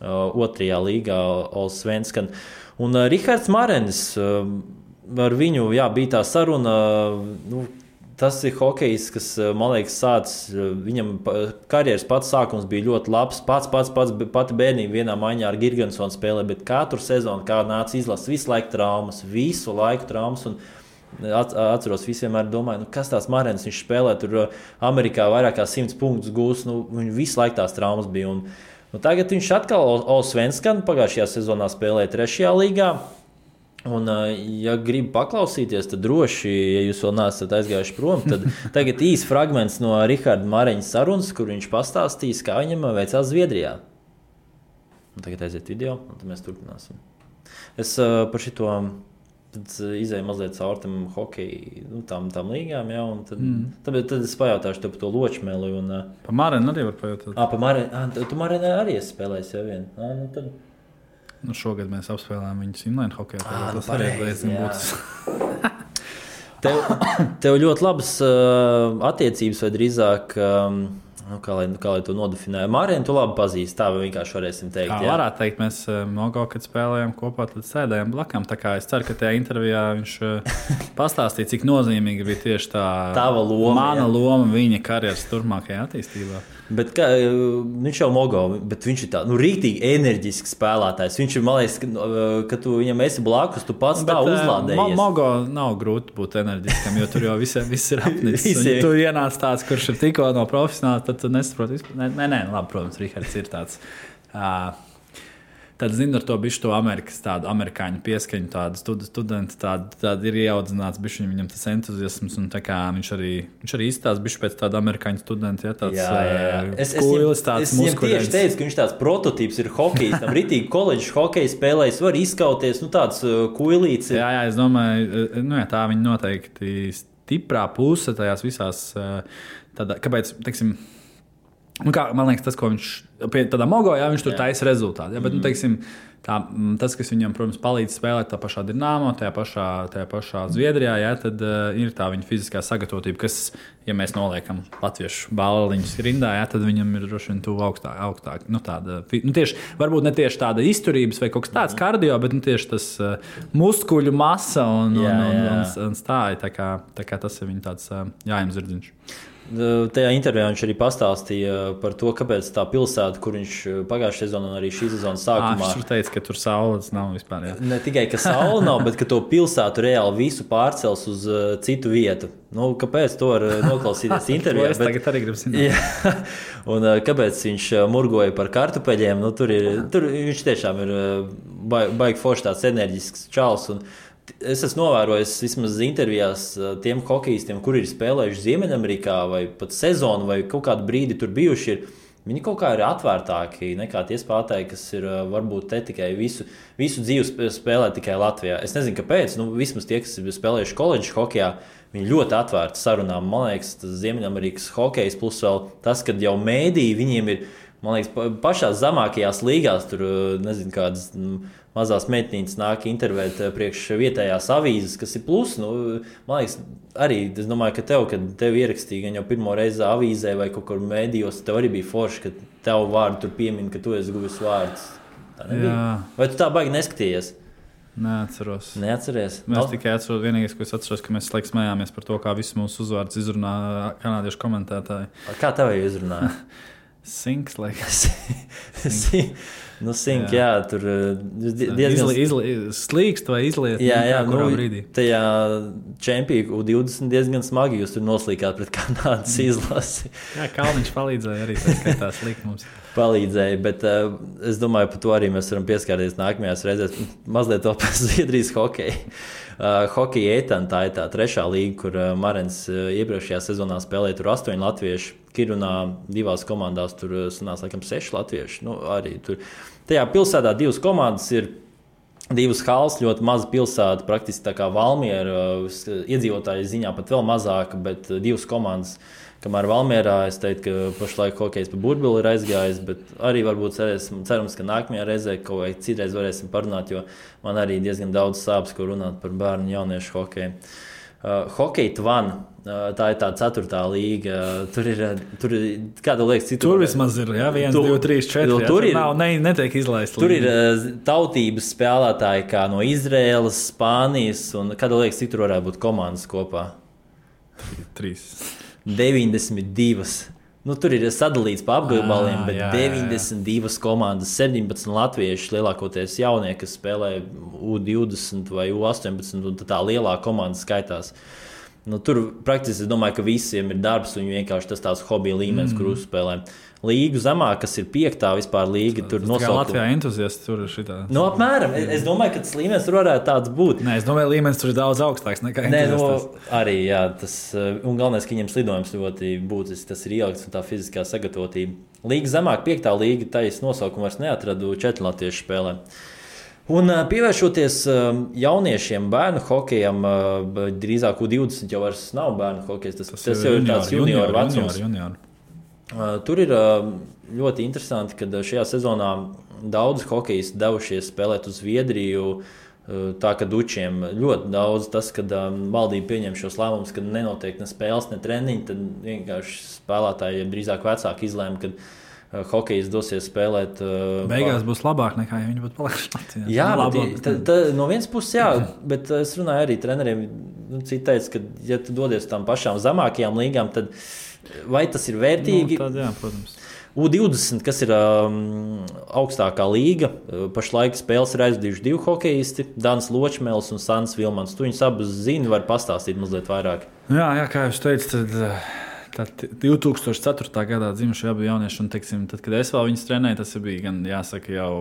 2. līgā Allsvenskan. Un Rihards Marenis, ar viņu bija tā saruna. Tas ir hokejs, kas, man liekas, viņam karjeras pats sākums bija ļoti labs. Pati bērnība vienā maiņā ar Girgensonu spēlē, bet katru sezonu, kā nāca izlases, visu laiku traumas. Un atceros, visi vienmēr domāju, kas tās Marenis, viņš spēlē tur Amerikā vairāk kā 100 punktus gūs, viņu visu laiku tās traumas bija. Un tagad viņš atkal Allsvenskan pagājušajā sezonā spēlēja 3. līgā. Un, ja gribi paklausīties, tad droši, ja jūs vēl neesat aizgājuši prom, tad tagad īsts fragments no Riharda Māreņa sarunas, kur viņš pastāstīs, kā viņam veicās Zviedrijā. Un tagad aiziet video, un tad mēs turpināsim. Es par šito izēju mazliet caur tam hokeju, tām līgām, jā, un tad es pajautāšu tev par to ločmeli. Un, pa Māreņu arī var pajautāt. Pa Māreņu, tu Māreņu arī esi spēlējis jau vien. Nu, tad... šogad mēs apspēlējām viņus inline hokeja. Tas arī būs. Tev ļoti labas attiecības vai drīzāk... Kā lai to nodefinē? Mārienu tu labi pazīsti, tā vienkārši varēsim teikt. Jā, varētu teikt, mēs Mogo, kad spēlējām kopā, tad sēdējām blakām. Tā kā es ceru, ka tajā intervijā viņš pastāstīja, cik nozīmīga bija tieši tava loma, mana loma viņa karjeras turpmākajā attīstībā. Bet viņš jau Mogo, bet viņš ir tā, rīktīgi enerģisks spēlētājs. Viņš ir, man liekas, ka tu viņam esi blakus, tu pats tā uzlādējies. Mogo nav grūti būt enerģiskam, jo tur jau viss ir apnicis. Tu ienāc tāds, kurš ir tikko no profesionāla, tad tu nesaproti vispār. Nē, labi, protams, Rihards ir tāds. Tad zinu ar to bišķi to tādu amerikāņu pieskaņu, tādu studentu, tādu ir ieaudzināts bišķi, viņam tas entuziasms, un tā kā viņš arī izstāsta bišķi pēc tāda amerikāņu studenta, ja tāds kuilis, tāds muskuļains. Es tieši teicu, ka viņš tāds prototīps ir hokejs, tam ritīgi koledžas hokeja spēlējis, var izskauties, tāds kuilīts. Jā, es domāju, tā viņa noteikti stiprā puse tajās visās, kāpēc, teiksim, man liekas, tas, ko viņš pie tādā Mogo, viņš tur taisa rezultātu. Bet, teiksim, tas, kas viņam, protams, palīdz spēlēt tā pašā Dinamo, tajā pašā Zviedrijā, tad ir tā viņa fiziskā sagatavotība, kas, ja mēs noliekam latviešu bāliņus rindā, tad viņam ir droši vien tuvu augstāk. Tieši, varbūt ne tieši tāda izturības vai kaut kas tāds kardio, bet tieši tas muskuļu masa un stāja. Tā kā tas ir viņa tāds jājams zirdziņš. Tajā intervijā viņš arī pastāstīja par to, kāpēc tā pilsēta, kur viņš pagājušajā sezonā un arī šī sezonas sākumā... Viņš teica, ka tur saules nav vispār. Jā. Ne tikai, ka saule nav, bet ka to pilsētu reāli visu pārcels uz citu vietu. Kāpēc to var noklausīties intervijā? Es tagad arī gribu zināt. Un kāpēc viņš murgoja par kartupeļiem? Tur viņš tiešām ir baigi forši tāds enerģisks čals. Es esmu novērojis vismaz intervijās tiem hokejistiem, kuri ir spēlējuši Ziemeļamerikā vai pat sezonu vai kaut kādu brīdi tur bijuši. Viņi kaut kā ir atvērtāki nekā tie spēlētāji, kas ir varbūt te tikai visu dzīvi spēlē tikai Latvijā. Es nezinu, kāpēc. Vismaz tie, kas ir spēlējuši koledžas hokejā, viņi ļoti atvērti sarunām. Man liekas, tas Ziemeļamerikas hokejs plus vēl tas, kad jau mēdī viņiem ir, man liekas, pašās zemākajās līgās tur, nezinu, kādas mazās meitnītes nāk intervēt priekš vietējās avīzes, kas ir plus. Man liekas, arī es domāju, ka kad tev ierakstīja gan jau pirmo reizi avīzē vai kaut kur mēdījos, tev arī bija forši, ka tev vārdu tur piemin, ka tu esi guvis vārdus. Tā nebija? Vai tu tā baigi neskatījies? Neatceros. Neatceries? Mēs tikai atceros, vienīgais, ko es atceros, ka mēs laiks smējāmies par to, kā visus mūsu uzvārdus izrunā kanādiešu komentētāji. Kā tev izrunāja? Sinks, laikas. Sink, jā, tur diezgan slīkst vai izliet. Jā, brīdī. Tajā čempiju 20 diezgan smagi jūs tur noslīkāt pret Kanādas izlasi. Jā, Kalniņš palīdzēja arī, tā skaitā slīkt mums. Palīdzēja, bet es domāju, par to arī mēs varam pieskārties nākamajās reizēs. Mazliet to par Zviedrijas hokeju. Hokeja Etan, tā ir tā trešā līga, kur Marens iepriekšējā sezonā spēlēja tur 8 latvieši. Kirunā 2 komandās tur sanāca laikam 6 latvieši. Arī tur. Tajā pilsētā 2 komandas ir 2 halas, ļoti maza pilsēta, praktiski tā kā Valmiera, iedzīvotāju ziņā pat vēl mazāka, bet 2 komandas. Kamēr Valmierā es teiktu, ka pašlaik hokejs pa burbuļu ir aizgājis, bet arī varbūt cerams, ka nākamajā reizē kaut vai citreiz varēsim parunāt, jo man arī diezgan daudz sāpes, ko runāt par bērnu jauniešu hokeju. Hokeja Tvan, tā ir tā 4. līga. Tur ir kāda liekas, citur. Tur vismaz ir, 1, 2, 3, 4. Tur ir, netiek izlaist. Tur ir tautības spēlētāji kā no Izraēlas, Spānijas, un kāda liekas, citur varētu būt komandas kopā? 3. 92. Tur ir sadalīts pa apgabaliem, bet 92 komandas, 17 latvieši, lielākoties jaunie, kas spēlē U20 vai U18, un tā lielā komanda skaitās. Tur praktiski es domāju, ka visiem ir darbs un vienkārši tas tās hobija līmenis, kur uzspēlē. Līgu zemāk, kas ir 5. vispār līga, tur nosaukt. Kā Latvijā entuziasti tur ir šitā. Apmēram. Es domāju, ka tas līmenis tur varētu tāds būt. Nē, es domāju, līmenis tur ir daudz augstāks nekā entuziastas. Arī, jā, un galvenais, ka viņam slidojums ļoti būtisks, tas ir ielikts un tā fiziskā sagatavotība. Līga zemāk, 5. līga, taisa nosaukumu vairs neatradu, 4 latviešu spēlē. Un pievēršoties jauniešiem, bērnu hokejam, drīzāk U20 jau vairs nav bērnu hokejs. Tas jau ir tāds junioru vecums. Tur ir ļoti interesanti, ka šajā sezonā daudz hokejisti devušies spēlēt uz Zviedriju. Tā kā dučiem ļoti daudz tas, kad valdība pieņem šos lēmumus, kad nenotiek ne spēles, ne treniņi, tad vienkārši spēlētāji drīzāk vecāki izlēma, ka hokejs dosies spēlēt. Beigās būs labāk nekā, ja viņi būtu palikuši Latvijā. Jā, no vienas puses, jā, bet es runāju arī treneriem. Citi teica, ka, ja tu dodies tam pašām zemākajām līgām, tad vai tas ir vērtīgi? Tad, jā, protams. U20, kas ir augstākā līga, pašlaik spēles ir aizvadījuši 2 hokejisti, Dans Ločmēls un Sants Vilmans. Tu viņus abus zini, var pastāstīt mazliet vairāk. Jā, kā jūs teicat, tad 2004. gadā dzimuši abi jaunieši, un, teiksim, tad, kad es vēl viņus trenēju, tas bija gan, jāsaka, jau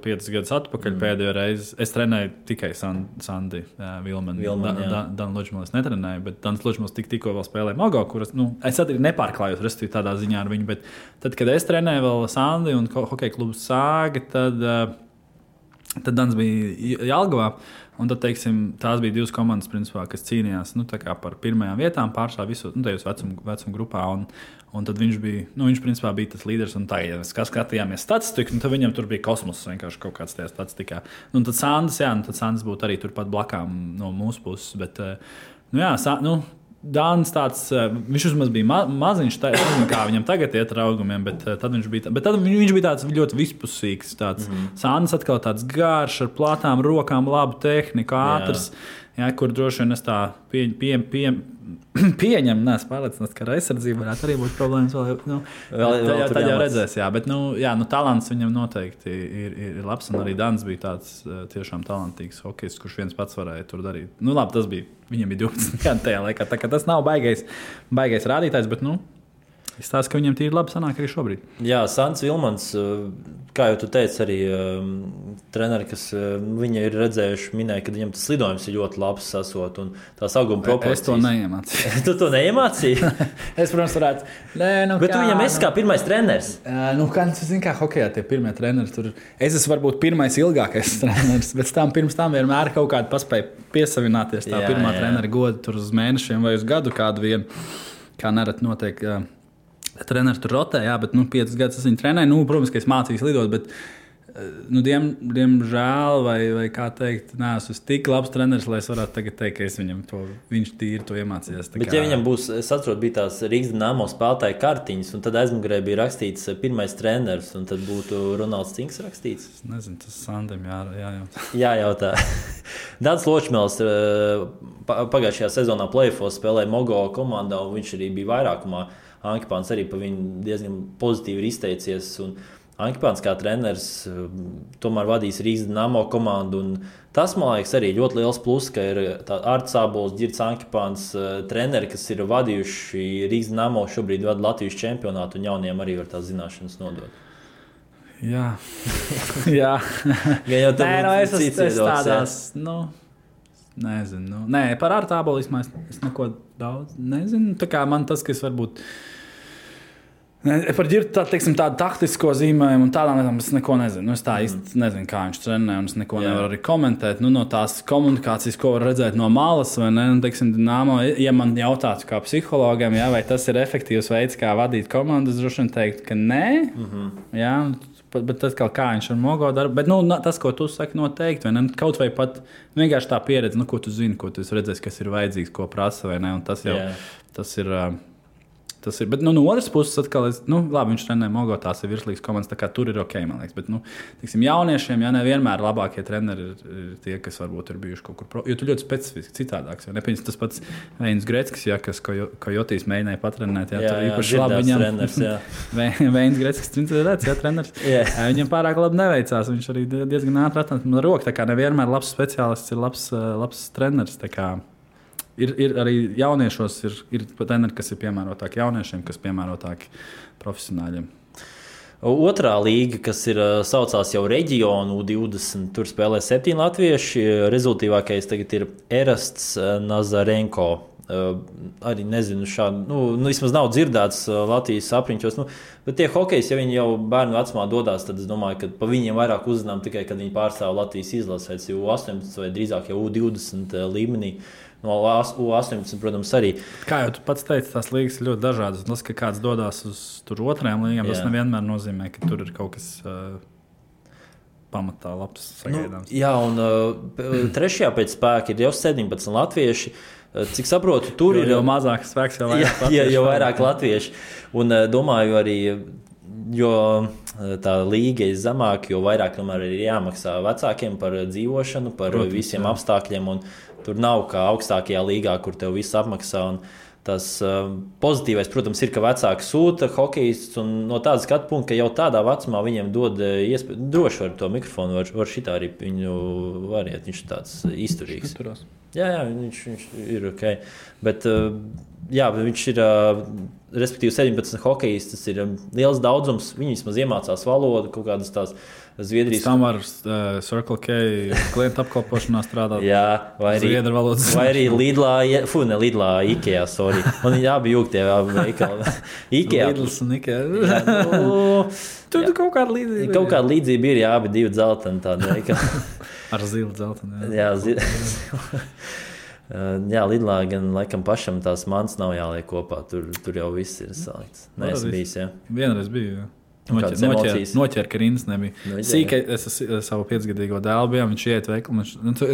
5 gadus atpakaļ pēdējo reizi. Es trenēju tikai Sandi Vilmanu. Dan Ločmēls netrenēju, bet Dans Ločmēls tikko vēl spēlēja Mogo, kuras, es arī nepārklājos, respektīvi tādā ziņā ar viņu, bet tad, kad es trenēju vēl Sandi un hokeja klubu Sāga, tad Dans bija Jelgavā. Un tad, teiksim, tās bija 2 komandas, principā, kas cīnījās par pirmajām vietām pārsvarā visu tajos vecuma grupā. Un tad viņš principā bija tas līderis. Un tā, ja mēs skatījāmies statistiku, tad viņam tur bija kosmos vienkārši kaut kāds tajā statistikā. Un tad Sandis būtu arī turpat blakām no mūsu puses. Bet, Dānis tāds, viņš vismaz bija maziņš, es nezinu, kā viņam tagad iet ar augumiem, bet tad viņš bija tāds ļoti vispusīgs. Sandis atkal tāds garš, ar platām rokām, labu tehniku, ātrs, kur droši vien es tā pieņemu, neesmu pārliecināts, ka ar aizsardzību varētu arī būt problēmas. Tad jau redzēs, jā, bet talants viņam noteikti ir labs, un arī Dans bija tāds tiešām talantīgs hokejists, kurš viens pats varēja tur darīt. Tas bija, viņam bija 12 gadu tajā laikā, tā kā tas nav baigais rādītājs, bet izstāsta, ka viņam tīri labi sanāk arī šobrīd. Jā, Sants Vilmans, kā jau tu teici, arī treneri, kas viņa ir redzējuši, minēja, ka viņam tas lidojums ir ļoti labs sasot un tās auguma proporcijas. Es to neiemācīju. Tu to neiemācīji? Es, protams, varētu. Bet tu viņam esi kā pirmais treneris. Kā hokejā tie pirmie treneri tur. Es esmu varbūt pirmais ilgākais treneris, bet pirms tam vienmēr kaut kādu paspēju piesavināties tā pirmā trenera goda tur uz mēnešiem vai uz gadu kādu vienu, kā nerad notiek. Treneris tur rotē, bet 5 gadus es viņu trenēju. Protams, ka es mācījos lidot, bet diemžēl, vai kā teikt, neesmu tik labs treneris, lai es varētu tagad teikt, ka viņš tīri to iemācījās. Bet ja viņam būs, es atceros, bija tās Rīgas Dinamo spēlētāja kartiņas, un tad aizmugurē bija rakstīts pirmais treneris, un tad būtu Ronalds Cinks rakstīts? Es nezinu, tas Sandim jājautā. Jājautā. Dans Ločmēls pagājušajā sezonā play-offos spēlēja Mogo komandā, un viņš arī bija vairākumā. Ankipāns arī par viņu diezgan pozitīvi ir izteicies. Ankipāns kā treneris tomēr vadīs Rīgas Dinamo komandu. Tas, man liekas, arī ļoti liels plus, ka ir Arts Ābols, Ģirds Ankipāns treneri, kas ir vadījuši Rīgas Dinamo, šobrīd vada Latvijas čempionātu, un jauniem arī var tās zināšanas nodot. Jā. Jā. Es tādās, nezinu. Nē, par Artu Ābolu es neko daudz nezinu. Tā kā man tas, kas varbūt par Ģirdu tādu taktisko zīmējumu un tādām lietām es neko nezinu. Es tā īsti nezinu, kā viņš trenē, un es neko nevaru arī komentēt. No tās komunikācijas, ko var redzēt no malas, vai ne? Teiksim, Dinamo, ja man jautātu kā psihologam, vai tas ir efektīvs veids, kā vadīt komandu, es droši vien teiktu, ka nē. Jā, bet tad kā viņš ar Mogo darbu. Bet tas, ko tu saki, noteikti, vai ne? Kaut vai pat vienkārši tā pieredze, ko tu zini, ko tu redzēsi, kas ir vajadzīgs, ko prasa, vai ne? Un tas jau tas ir. Bet no otras puses, atkal, labi, viņš trenē Mogo, tās ir virslīgas komandas, tā kā tur ir ok, man liekas. Bet, tiksim, jauniešiem, nevienmēr labākie treneri ir tie, kas varbūt ir bijuši kaut kur jo tu ļoti specifiski citādāks. Nepieņems tas pats Veinis Greckis, kas Kojotīs mēģināja patrenēt. Tur īpaši labi viņam. Veinis Greckis, treneris. Viņam pārāk labi neveicās. Viņš arī diezgan ātri atnāca man roka. Tā kā nevienmēr labs speciālists ir labs treneris. Tā kā Ir arī jauniešos, ir treneri, kas ir piemērotāki jauniešiem, kas piemērotāki profesionāļiem. Otrā līga, kas ir saucās jau Reģionu 20, tur spēlē 7 latvieši. Rezultīvākais tagad ir Erasts Nazarenko. Arī nezinu, šādu, vismaz nav dzirdēts Latvijas apriņķos. Bet tie hokejs, ja viņi jau bērnu vecumā dodās, tad es domāju, ka pa viņiem vairāk uzzinām tikai, kad viņi pārstāv Latvijas izlasēs, jo U18 vai drīzāk jau U20 līmenī. No U18, protams, arī. Kā jau tu pats teici, tās līgas ir ļoti dažādas. Tas, ka kāds dodas uz otrajām līgām, tas nevienmēr nozīmē, ka tur ir kaut kas pamatā labs sagaidāms. Jā, un trešajā pēc spēka ir jau 17 latvieši. Cik saprotu, tur ir jau mazāk spēks, jau vairāk latvieši. Jau vairāk latvieši. Un domāju arī, jo tā līga ir zemāka, jo vairāk tomēr ir jāmaksā vecākiem par dzīvošanu, par visiem apstākļiem. Un tur nav kā augstākajā līgā, kur tev viss apmaksā. Un tas pozitīvais, protams, ir, ka vecāki sūta hokejistus. No tāda skatu punkta, ka jau tādā vecumā viņiem dod iespēju, droši var to mikrofonu, var šitā arī viņu variet. Viņš ir tāds izturīgs. Jā, viņš ir ok. Bet viņš ir, respektīvi, 17 hokejisti. Tas ir liels daudzums. Viņi vismaz iemācās valodu, kaut kādas tās Zviedrijas. Tam var Circle K klientu apkalpošanā strādāt. Jā, vai arī Lidlā, Ikea, sorry. Un viņi abi jūg tie veikali. Ikea. Lidls un Ikea. Tur kaut kāda līdzība. Kaut kāda līdzība ir, jā, abi divi dzelteni tādi veikali. Ar zilu dzelteni. Jā, jā, Lidlā gan laikam pašam tās mans nav jāliek kopā. Tur jau viss ir salikts. Nē, es bijis, jā. Vienreiz biju, jā. Noķēra, ka rindas nebija. Sīkai es savu 5-gadīgo dēlu bijām, viņš iet veikalu.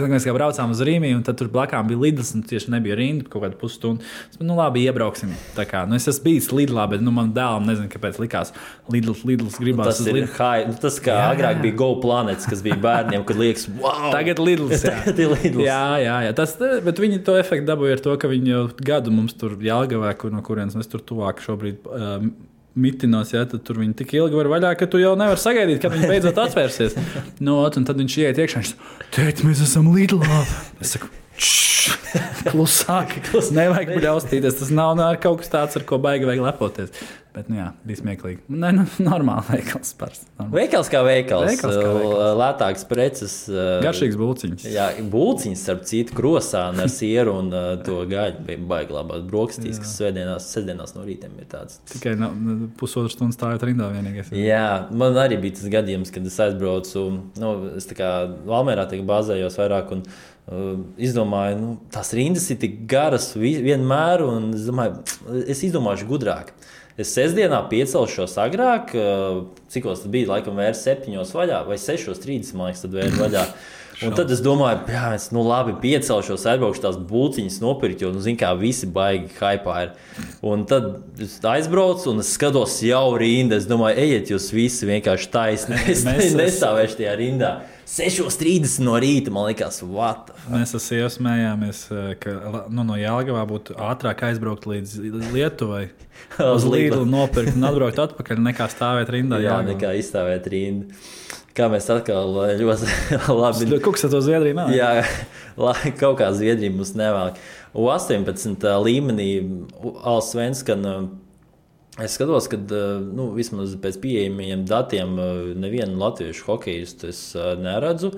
Mēs kā braucām uz Rīmī, un tad tur blakām bija Lidls, un tieši nebija rinda kaut kādu pusstundu. Labi, iebrauksim. Tā kā, es esmu bijis Lidlā, bet man dēlam nezinu, kāpēc likās Lidls gribās. Tas kā agrāk bija Go Planets, kas bija bērniem, kad liekas, wow! Tagad Lidls, jā. Tagad ir Lidls. Jā. Bet viņi to efektu dabūja ar to, ka viņi jau gadu mums tur Jelgavā, no kurienes mēs tur tuvāk šobrīd mitinos, ja, tad tur viņi tik ilgi var vaļā, ka tu jau nevar sagaidīt, kad viņi beidzot atvērsies. Un tad viņš iet iekšā, teikt, mēs esam Lidlā. Es saku, klusāk, nevajag bļaustīties. Tas nav kaut kas tāds, ar ko baigi vajag lepoties. Bet, jā, bija smieklīgi. Normāli veikals. Veikals kā veikals. Lētāks preces. Garšīgs bulciņas. Jā, bulciņas, starp citu, krosāni ar sieru un to gaļu bija baigi labās brokastīs, kas sestdienās no rītiem ir tāds. Tikai pusotru stundu stājot rindā vienīgais. Jā, man arī bija tas gadījums, kad es aizbraucu. Es tā kā Valmērā bāzējos vairāk un izdomāju, tās rindas ir tik garas vienmēr, un es izdomāšu gudrāk. Es sestdienā piecelšos agrāk, cikos tas bija, laikam vērs 7 vaļā, vai 6:30, man liekas, tad vērs vaļā. Un tad es domāju, es labi piecelšos, aizbraukšu tās bulciņas nopirkt, jo, kā visi baigi haipā ir. Un tad es aizbraucu un es skatos jau rinda. Es domāju, ejiet jūs visi vienkārši taisni. Es nestāvēšu tajā rindā. 6:30 no rīta, man liekas, what? Mēs ar sievu smējāmies, ka no Jelgavā būtu ātrāk aizbraukt līdz Lietuvai. Uz Lidlu nopirkt un atbraukt atpakaļ, nekā stāvēt rindā. Jā, nekā izstāvēt rindu. Kā mēs atkal ļoti labi... Kaut kas ar to Zviedriju nav? Jā, kaut kā Zviedrija mums nevēl. U18 līmenī Allsvenskan es skatos, ka vismaz pēc pieejamiem datiem nevienu latviešu hokejistu es neredzu.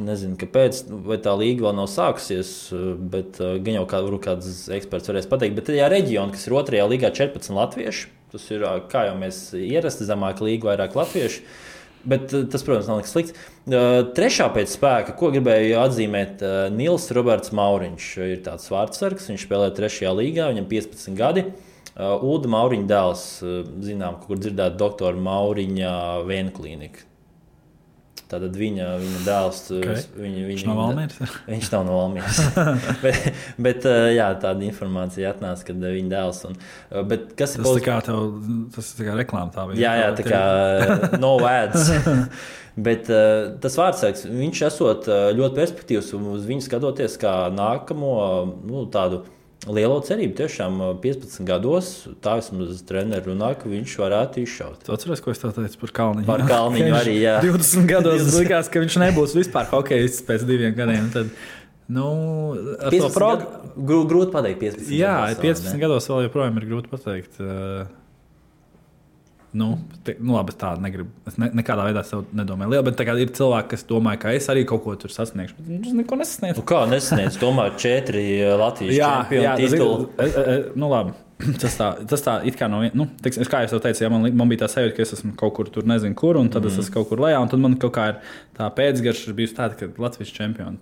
Nezinu, kāpēc, vai tā līga vēl nav sākusies, bet gan jau kāds eksperts varēs pateikt. Bet tajā reģionā, kas ir otrajā līgā 14 latvieši, tas ir, kā jau mēs ierasti, zemāka līga, vairāk latvieši. Bet tas, protams, nav nekas slikts. Trešā pēc spēka, ko gribēju atzīmēt, Nils Roberts Mauriņš ir tāds vārdsargs. Viņš spēlē 3. līgā, viņam 15 gadi. Ulda Mauriņa dēls, zinām, kur dzirdēt doktora Mauriņa Vēnu klīnika. Tātad viņa dēls, okay. Viņš nav Valmieras? Viņš nav no Valmieras. bet jā, tāda informācija atnāca, kad viņa dēls. Bet kas ir tas ir tā kā reklāma tā bija? Jā, tā kā no ads. Bet tas vārdsargs, viņš esot ļoti perspektīvs un uz viņu skatoties kā nākamo tādu lielo cerību. Tiešām 15 gados tā vismaz treneri runā, ka viņš varētu izšaut. Tu atceries, ko es tev teicu par Kalniņu? Par Kalniņu arī, jā. 20 gados likās, ka viņš nebūs vispār hokejists pēc 2 gadiem. Tad Nu, ar 15 to programmu. grūti pateikt 15 Jā, gados. 15 gados vēl joprojām ir grūti pateikt. Labi, es tādu negribu. Es nekādā veidā sev nedomāju lielu, bet tagad ir cilvēki, kas domā, ka es arī kaut ko tur sasniegšu. Bet es neko nesasniegšu. Kā nesasniedz? Tomēr 4 Latvijas čempionu titulu. Labi. Tas tā it kā no vienas, kā jau teicu, ja man bija tā sajūta, ka es esmu kaut kur tur, nezinu, kur, un tad es esmu kaut kur lejā, un tad man kaut kā ir tā pēcgarša bijusi tāda, ka Latvijas čempioni.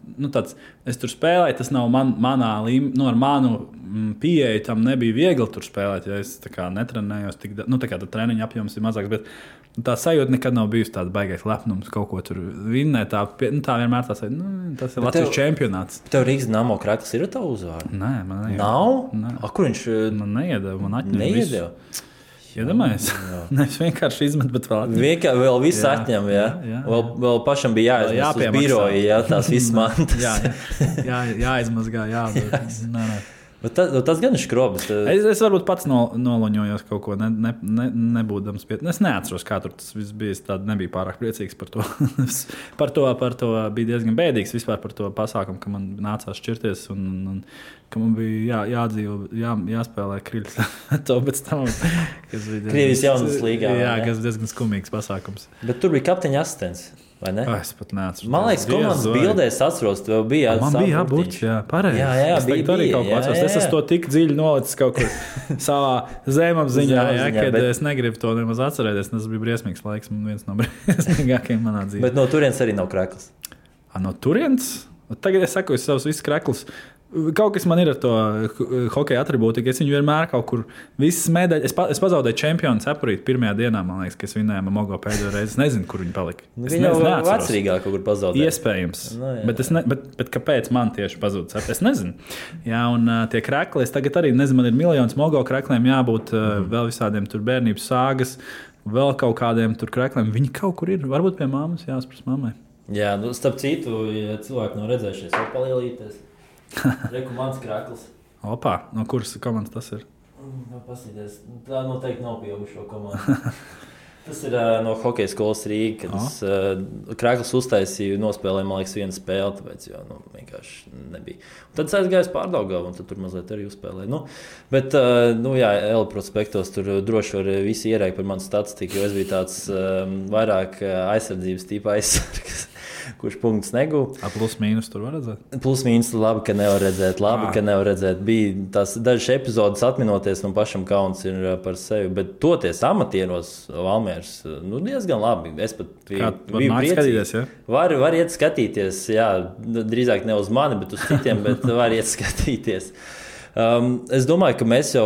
Es tur spēlēju, tas nav manā līmenī, ar manu pieeju tam nebija viegli tur spēlēt, ja es tā kā netrenējos, tā kā treniņa apjoms ir mazāks, bet tā sajūta nekad nav bijusi tāda baigais lepnums kaut ko tur vinnēt. Tā vienmēr tā sajūta, tas ir Latvijas čempionāts. Tev Rīgas Dinamo Krakls ir tā uzvārda? Nē, man nav. Kur viņš? Man neiedeva, man atņem Neiedeva? Iedomājies? Nevis vienkārši izmet, bet vēl atņem. Vēl viss atņem, jā. Vēl pašam bija jāizmest uz biroju, jā, tās visas mantas. Jāizmazgā, jādod. Bet tas gan ir skrobis. Es varbūt pats noloņojos kaut ko, nebūdams pie. Es neatceros, kā tur tas viss bija. Es nebiju pārāk priecīgs par to. par to bija diezgan bēdīgs vispār par to pasākumu, ka man nācās šķirties un ka man bija jāspēlē Kriļs. To pēc tam, kas bija Krievijas jaunas līgā. Jā, kas diezgan skumīgs pasākums. Bet tur bija kapteiņa asistents. Es pat neatceros. Man liekas, komandas bildēs atceros, tev bija man bija jābūt, pareizi. Jā, bija arī kaut ko atceros. Es esmu to tik dziļi nolicis kaut kur savā zemapziņā, kad es negribu to nemaz atcerēties. Tas bija briesmīgs laiks, viens no briesmīgākajiem manā dzīvē. Bet no turienes arī nav Krakls. No turienes? Tagad es saku, savus visus Kraklus. Kaut kas man ir ar to hokeja atribūtiku. Es viņu vienmēr kaut kur visas medaļas. Es pazaudēju čempionu cepurīti pirmajā dienā, man liekas, ka es vinēju Mogo pēdējo reizi. Es nezinu, kur viņi palika. Viņa jau vecrīgā kaut kur pazaudēja. Iespējams. Bet kāpēc man tieši pazuda cepurīti? Es nezinu. Jā, un tie krekli, es tagad arī nezinu, man ir miljons Mogo krekliem jābūt vēl visādiem tur bērnības sāgas, vēl kaut kādiem tur krekliem. Viņi kaut kur ir. Varbūt pie mammas jāspras mammai. Jā, starp citu, ja cilvēki nav redzējušies, var palielīties. Reku mans Krakls. Opā, no kuras komandas tas ir? Pasīties. Tā noteikti nav pieaugušo komandu. Tas ir no hokeja skolas Rīga, kad Krakls uztaisīja, nospēlēja, man liekas, vienu spēli, tāpēc vienkārši nebija. Un tad es aizgāju uz Pārdaugavu, un tad tur mazliet arī uzspēlēju. Bet, Ela prospektos tur droši var visi ierēkt par manu statistiku, jo es biju tāds vairāk aizsardzības tīpa aizsargs. Kurš punkts negūja. Plus mīnus tur var redzēt? Plus mīnus labi, ka nevar redzēt. Bija tās dažas epizodes atminoties, man pašam kauns ir par sevi. Bet toties amatieros Valmieras, diezgan labi. Es pat biju priecīgs. Ja? Var iet skatīties, jā, drīzāk ne uz mani, bet uz citiem, bet var iet skatīties. Es domāju, ka mēs jau,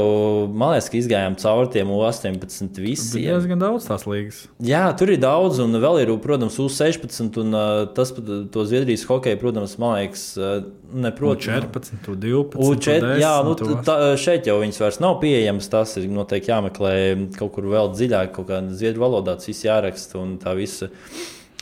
man liekas, ka izgājām cauri tiem U18 visiem. Ir diezgan daudz tās līgas. Jā, tur ir daudz, un vēl ir, protams, U16, un tas pat to Zviedrijas hokeju, protams, man liekas, U14, U12, U10. Jā, šeit jau viņas vairs nav pieejamas, tas ir noteikti jāmeklē kaut kur vēl dziļāk, kaut kā zviedru valodā tas viss jāraksta, un tā visa,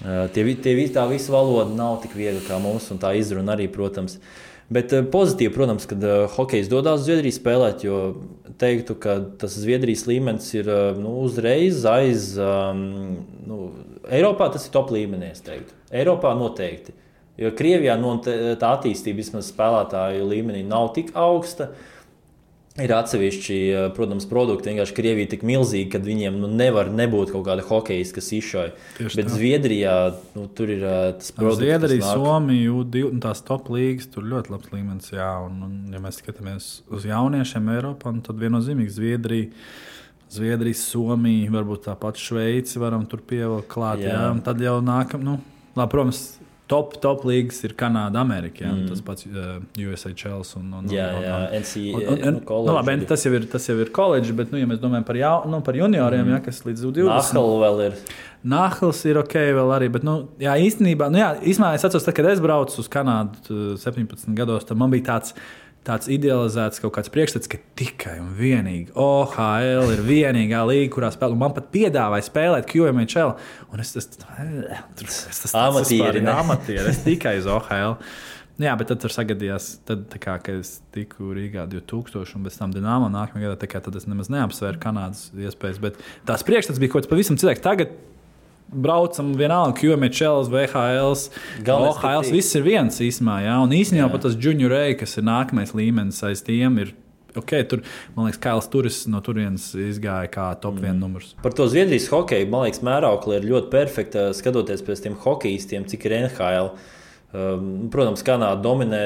tā visa valoda nav tik viegla kā mums, un tā izruna arī, protams. Bet pozitīvi, protams, kad hokejs dodas uz Zviedriju spēlēt, jo teiktu, ka tas Zviedrijas līmenis ir uzreiz aiz. Eiropā tas ir top līmenī, es teiktu. Eiropā noteikti. Jo Krievijā tā attīstība vismaz spēlētāju līmenī nav tik augsta. Ir atsevišķi, protams, produkti. Vienkārši Krievija tik milzīga, ka viņiem nevar nebūt kaut kāda hokejas, kas izšauj. Bet Zviedrijā tur ir tas produkts. Zviedrija, Somija, tās top līgas, tur ļoti labs līmenis. Jā, un ja mēs skatāmies uz jauniešiem Eiropā, tad viennozīmīgi Zviedrija, Somija, varbūt tāpat Šveici varam tur pievilkt klāt. Jā. Un tad jau nākam, protams, top līgas ir Kanāda, Amerika. Jā, tas pats USHL un NCAA. Tas jau ir koledžs, bet, ja mēs domājam par junioriem, kas līdz 20. Nahal vēl ir. Nahals ir ok vēl arī, bet, īstenībā es atceros, kad es braucu uz Kanādu 17 gados, tad man bija tāds idealizēts kaut kāds priekšstats, ka tikai un vienīgi OHL ir vienīgā līga, kurā spēlē. Man pat piedāvāja spēlēt QMHL, un es amatieri, es tikai uz OHL. Jā, bet tad tur sagadījās, kad es tiku Rīgā 2000 un pēc tam Dinamo nākamajā gadā, tad es nemaz neapsvēru Kanādas iespējas, bet tās priekšstats bija kaut kas pavisam cilvēks. Tagad braucam vienalga, QMHLs, VHLs, OHLs, viss ir viens īsumā, jā. Un īstenībā pat tas Junior A, kas ir nākamais līmenis aiz tiem, ir tur, man liekas, Kails Turis no turienes izgāja kā top 1 numurs. Par to Zviedrijas hokeju, man liekas, mēraukli ir ļoti perfekta skatoties pēc tiem hokejistiem, cik ir NHL. Protams, Kanāda dominē.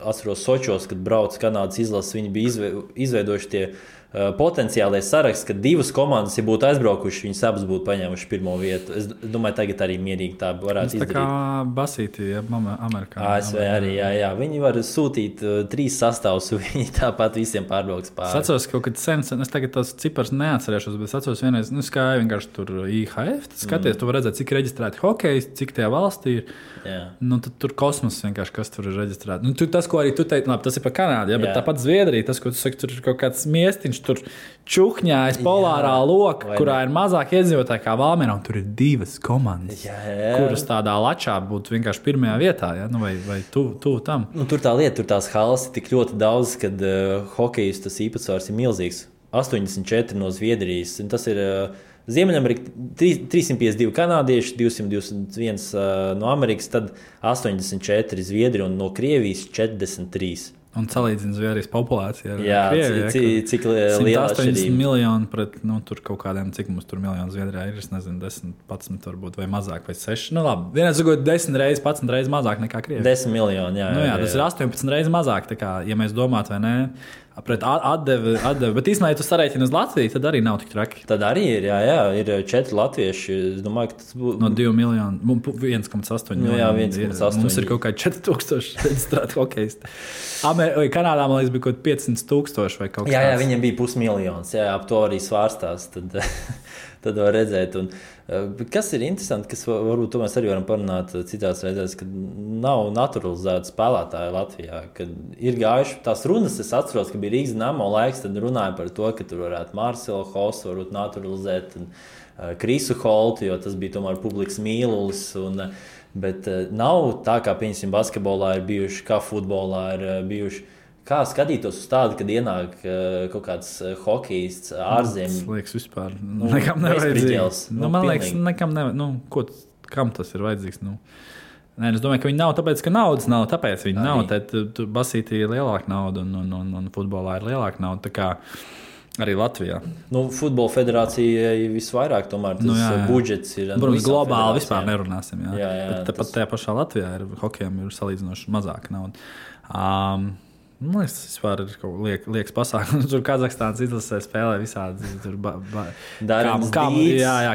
Atceros Sočos, kad brauc Kanādas izlases, viņi bija izveidojuši tie potenciālie saraksts, ka 2 komandas, ja būtu aizbraukuši, viņas abas būtu paņēmuši 1. vietu. Es domāju, tagad arī mierīgi tā varētu izdarīt. Tā kā Basīti, Amerikā. ASV arī, jā. Viņi var sūtīt 3 sastāvus, viņi tāpat visiem pārbrauks pāri. Es atceros, ka kaut kad sen, es tagad tos cipars neatcerēšos, bet es atceros vienreiz, skāja vienkārši tur IHF, skaties, tu var redzēt, cik reģistrēti hokejisti, cik tajā valstī ir. Tad tur kosmos vienkārši, kas tur ir reģistrēti. Tas, ko arī tu teici, labi, tas ir par Kanādu, bet tāpat Zviedrija, tas, ko tu saki, tur ir kaut kāds miestiņš, tur čukņājas polārā loka, kurā ir mazāk iedzīvotāji kā Valmierā, un tur ir 2 komandas, kuras tādā lačā būtu vienkārši 1. vietā, vai tuvu tam. Tur tā lieta, tur tās halas ir tik ļoti daudz, kad hokejs tas īpatsvars ir milzīgs. 84 no Zviedrijas, un tas ir Ziemeļamerika 352 kanādieši, 221 no Amerikas, tad 84 Zviedri un no Krievijas 43. Un salīdzina Zviedrijas populācija ar Krieviju. Cik liela 180 miljoni pret, tur kaut kādiem, cik mums tur miljonu Zviedrijā ir, es nezinu, 10, 11 varbūt, vai mazāk, vai 6. Labi, vienreiz sakot 10 reizes, 11 reizes mazāk nekā Krievija. 10 miljoni, jā. Tas ir 18 reizes mazāk, tā kā, ja mēs domātu, vai ne, pret atdevi, bet īstenībā, ja tu sarēķini uz Latviju, tad arī nav tik traki. Tad arī ir, ir 4 latvieši. Es domāju, ka tas būtu... No 2 miljonu, 1,8 miljonu. Jā, 1,8. Mums ir kaut kā 4,000 reģistrēti hokejisti. Kanādā, man liekas, bija kaut 500,000 vai kaut kas tāds. Jā, viņiem bija 500,000, ap to arī svārstās. Tad var redzēt. Un, kas ir interesanti, kas varbūt to mēs arī varam parunāt citās reizēs, kad nav naturalizēta spēlētāja Latvijā. Kad ir gājuši tās runas, es atceros, ka bija Rīgas Dinamo laiks, tad runāja par to, ka tur varētu Marcelu Hosu varbūt naturalizēt un Krisu Holtu, jo tas bija tomēr publikas mīlulis. Bet nav tā, kā piemēram basketbolā ir bijuši, kā futbolā ir bijuši. Kā skatītos uz tādu, kad ienāk kaut kāds hokejists ārzemēs? Tas liekas vispār nekam nevajadzīgs. Man liekas, nekam nevajadzīgs. Kam tas ir vajadzīgs? Nē, es domāju, ka viņi nav tāpēc, ka naudas nav. Tāpēc viņi nav. Tad Basītī ir lielāka nauda un futbolā ir lielāka nauda. Tā kā arī Latvijā. Futbola federācijai visvairāk tomēr tas budžets ir. Protams, globāli vispār nerunāsim. Jā. Bet tāpat tajā pašā Latvijā hokejam ir salīdzinoši mazāka nauda. Man liekas, tas vispār ir liekas pasākums. Tur Kazahstānas izlasē spēlē visādi.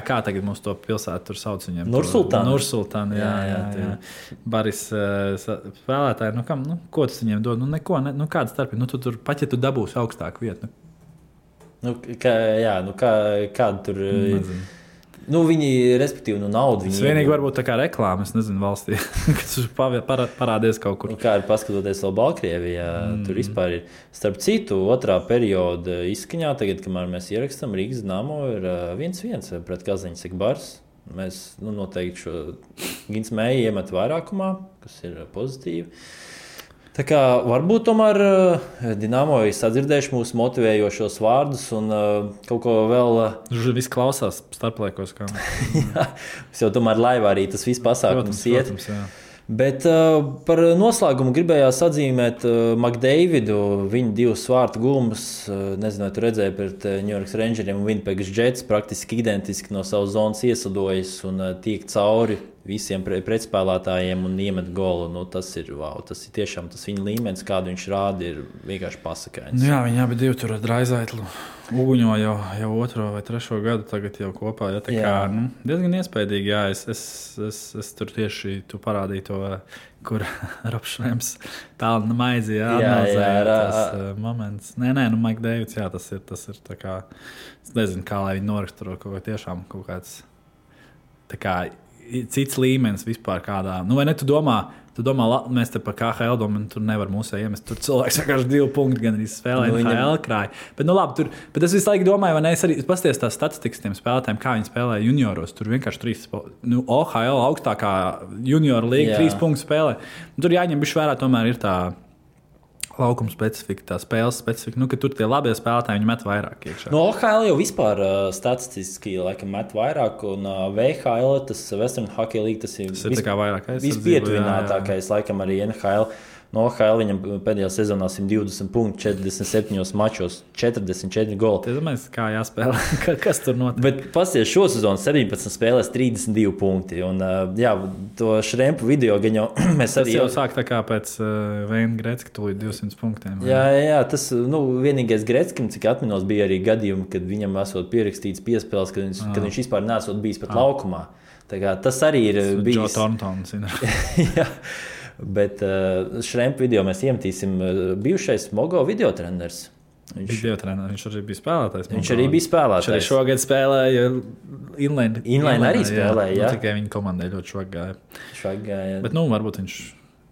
Kā tagad mums to pilsētu tur sauc viņiem? Nursultāna, jā. Baris spēlētāji, ko tas viņiem dod? Neko, kāda starpība? Tu tur pat, ja tu dabūsi augstāku vietu. Kāda tur... Nezinu. Viņi, respektīvi, naudu. Tas vienīgi varbūt tā kā reklāma, es nezinu, valstī, kas parādies kaut kur. Kā ir paskatoties vēl Baltkrievijā, tur vispār ir. Starp citu, otrā perioda izskaņā, tagad, kamēr mēs ierakstām, Rīgas Dinamo ir 1-1 pret Kazaņas Ekbars. Mēs noteikti šo Gins Mēju iemet vairākumā, kas ir pozitīvi. Tā kā varbūt tomēr Dinamo ir sadzirdējuši mūsu motivējošos vārdus un kaut ko vēl... Viss klausās starplaikos. Jā, jau tomēr laivā arī tas viss pasākums iet. Protams, jā. Bet par noslēgumu gribējās atzīmēt McDavidu, viņa 2 svārtu gulmas, nezinu, vai tu redzēji pret New York Rangeriem un Winnipeg Jets, praktiski identiski no savas zonas iesadojas un tiek cauri visiem pretspēlētājiem un iemet golu. Tas ir tiešām tas viņa līmenis, kādu viņš rāda, ir vienkārši pasakains. Jā, viņi abi 2 tur ar Draizaitlu uguņo jau 2. vai 3. gadu tagad jau kopā. Ja, tā kā, diezgan iespaidīgi, jā, es tur tieši tu parādīju to, kur Robšrēms pelna maizi, tas moments. Nē, Mike Davids, jā, tas ir tā kā, es nezinu, kā lai viņi noraksturo kaut tiešām kaut kāds, tā kā, cits līmenis vispār kādā. Vai ne, tu domā, mēs te par KHL domājam, tur nevar mūsē iemest. Tur cilvēks vienkārši 2 punkti gan arī spēlē NHL krāja. Bet, labi, bet es visu laiku domāju, vai ne, es arī pasties tās statistikas tiem spēlētājiem, kā viņi spēlē junioros. Tur vienkārši 3, OHL augstākā juniora līga 3 punktu spēlē. Tur jāņem bišķi vērā, tomēr ir tā laukuma specifika, tā spēles specifika, ka tur tie labie spēlētāji viņi met vairāk iekšā. No OHL jau vispār statistiski laikam met vairāk, un VHL, tas Western Hockey League, tas ir tā kā vairāk aizsardzību. Vispietuvinātākais, laikam arī NHL. No OHL viņam pēdējā sezonā 120 punkti, 47 mačos, 44 goli. Tie domāju, kā jāspēlē, kas tur notiek. Bet pasies šo sezonu 17 spēlēs 32 punkti. Un, jā, to Šrempu video gan jau mēs tas arī... Tas jau sāk tā kā pēc Veina Gretzka tūlīt 200 punktiem. Jā, tas vienīgais Gretzkim, cik atminos, bija arī gadījumi, kad viņam esot pierakstīts piespēles, kad viņš vispār nesot bijis pat laukumā. Tā kā tas arī ir bijis... Joe Thorntons. Jā. Bet Šrempu video mēs iemetīsim bijušais Mogo videotreners. Viņš arī bija spēlētājs. Viņš arī bija spēlētājs. Viņš arī šogad spēlēja Inline. Inline arī spēlēja, jā. Tikai viņa komandai ļoti švag gāja. Bet, varbūt viņš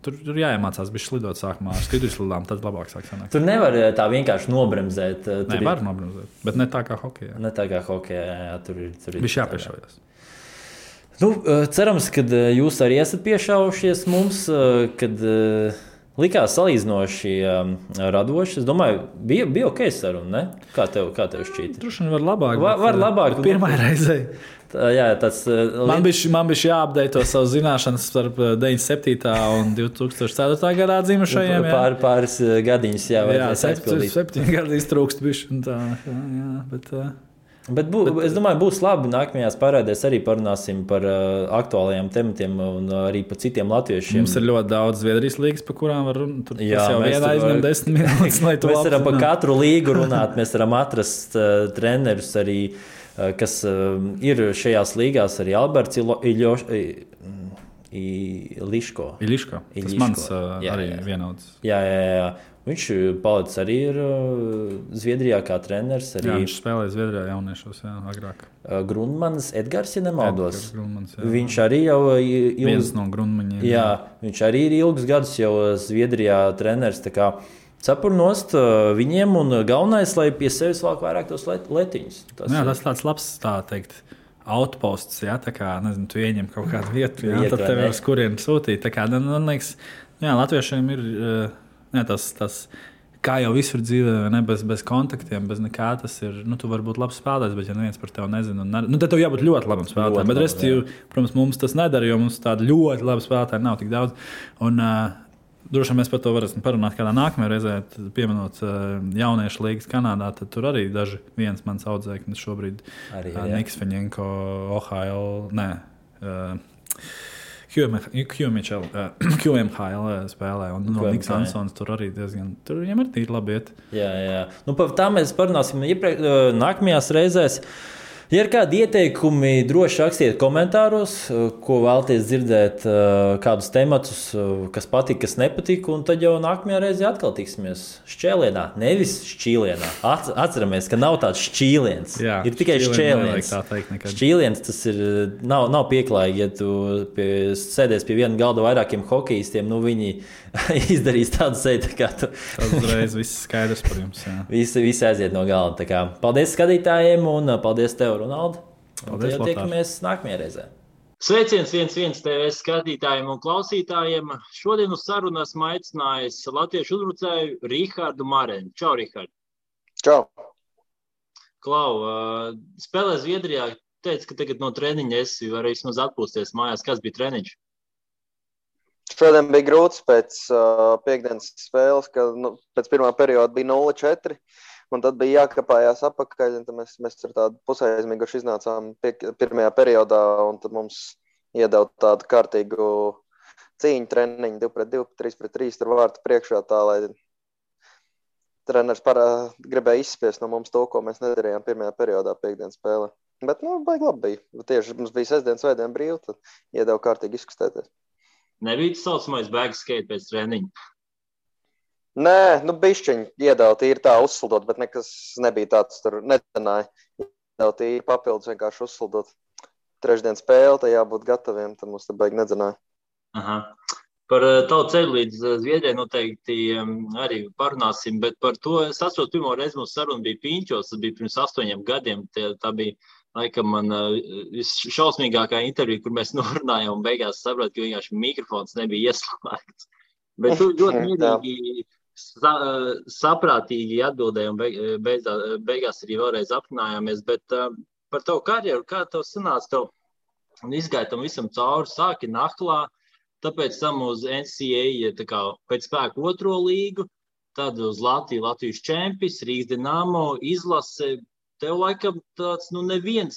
tur jāiemācās bija slidot sākumā ar skidruslidām, tad labāk sāk sanākt. Tur nevar tā vienkārši nobremzēt. Nē, var nobremzēt, bet ne tā kā hokejā. Ne tā kā hokejā, jā, tur ir. Viņš jāpiešaujas. Cerams, ka jūs arī esat piešaujušies mums, kad likās salīdzinoši radoši. Es domāju, bija ok saruna, ne? Kā tev šķīta? Droši vien var labāk. Var labāk. Pirmā reize. Jā, tas... Man bija jāapdeito savu zināšanas starp 97. un 2004. gadā dzimušajiem. Pāris gadiņus, jā. Jā, 7 gadi iztrūkst bišķi. Bet es domāju, būs labi. Nākamajās pārādēs arī parunāsim par aktuālajiem tematiem un arī par citiem latviešiem. Mums ir ļoti daudz Zviedrijas līgas, par kurām var runāt. Tas jau vienā aizņem 10 minūtes, lai tu mēs varam par katru līgu runāt. Mēs varam atrast trenerus arī, kas ir šajās līgās. Arī Alberts Iliško. Tas mans arī vienauds. Jā. Viņš palicis arī Zviedrijā kā treneris. Arī... Jā, viņš spēlēja Zviedrijā jauniešos, agrāk. Grundmans Edgars, ja nemaldos. Grundmans, viņš arī jau viens no Grundmaņiem. Jā, viņš arī ir ilgus gadus jau Zviedrijā treneris. Tā kā cepurnost viņiem un galvenais, lai pie sevis valk vairāk tos letiņus. Tas tāds labs, tā teikt, outposts, jā, tā kā, nezinu, tu ieņem kaut kādu vietu, jā, tad tev uz kurien sūtīt. Tā kā, man liekas, jā, latviešiem ir... Tas, kā jau visur dzīvē, ne, bez kontaktiem, bez nekā, tas ir, tu vari būt labs spēlētājs, bet ja neviens par tevi nezina, tad tev jābūt ļoti labam spēlētājam. Bet restīvi, protams, mums tas nedara, jo mums tāda ļoti laba spēlētāja nav tik daudz. Un droši vien mēs par to varēsim parunāt kādā nākamajā reizē, pieminot jauniešu līgas Kanādā, tad tur arī daži viens mans audzēknis šobrīd, Niks Feņenko, OHL, QMHL spēlē, un Niks Ansons tur arī diezgan, tur viņam ir tīri labi iet. Jā. Par tā mēs parunāsim nākamajās reizēs. Ja ir kādi ieteikumi, droši rakstiet komentāros, ko vēlaties dzirdēt, kādus tematus, kas patīk, kas nepatīk, un tad jau nākamajā reizē atkal tiksimies Šķēlienā, nevis Šķīlienā. Atceramies, ka nav tāds šķīliens, ir tikai šķēliens. Šķīliens tas ir, nav pieklājīgi, ja tu sēdies pie viena galda vairākiem hokejistiem, viņi izdarīs tādu sēdi, kā tu. Tas uzreiz viss skaidrs par jums. Visi aiziet no galda. Tā kā, paldies skatītājiem un paldies tev, Ronaldi. Paldies, tiekamies nākamajā reizē. Sveiciens 1-1 TV skatītājiem un klausītājiem. Šodien uz sarunu esmu aicinājis latviešu uzbrucēju Rihardu Marenu. Čau, Rihard. Čau. Klau, spēlē Zviedrijā. Teici, ka tagad no treniņa esi var vismaz atpūsties mājās. Kas bija treniņš? Šodien bija grūts pēc piekdienas spēles, ka pēc pirmā perioda bija 0-4, un tad bija jākapājās apakaļ, un tad mēs ar tādu pusaizmiguši iznācām pirmajā periodā, un tad mums iedeva tādu kārtīgu cīņu treniņu 2-2, 3-3, tur vārtu priekšā tā, lai treneris gribēja izspiest no mums to, ko mēs nedarījām pirmajā periodā piekdienas spēlē. Bet, baigi labi bija. Tieši mums bija sestdien, svētdien brīvi, tad iedeva kārtīgi izkustēties. Nebija tas saucamais bēgas skate pēc treniņa? Nē, bišķiņi iedeva tīri tā uzsildot, bet nekas nebija tāds tur netenāja. Iedeva tīri papildus vienkārši uzsildot. Trešdien spēle, tā jābūt gataviem, tad mums te baigi nedzenāja. Aha. Par tavu ceļu līdz Zviedrijai noteikti arī parunāsim, bet par to es atceros, pirmo reizi mūsu saruna bija Piņķos, tas bija pirms 8 gadiem. Tā bija, laikam, man šausmīgākā intervija, kur mēs norunājām un beigās sapratu, ka vienkārši mikrofons nebija ieslēgts. Bet tu ļoti mierīgi saprātīgi atbildēji un beigās arī vēlreiz aprunājāmies, bet par tavu karjeru, kā tev sanāca, tev izgāja tam visam cauri, sāki Nahlā, tāpēc tam uz NCAA tā kā pēc spēku 2. līgu, tad uz Latvijas čempis, Rīgas Dinamo, izlase. Tev laikam tāds, neviens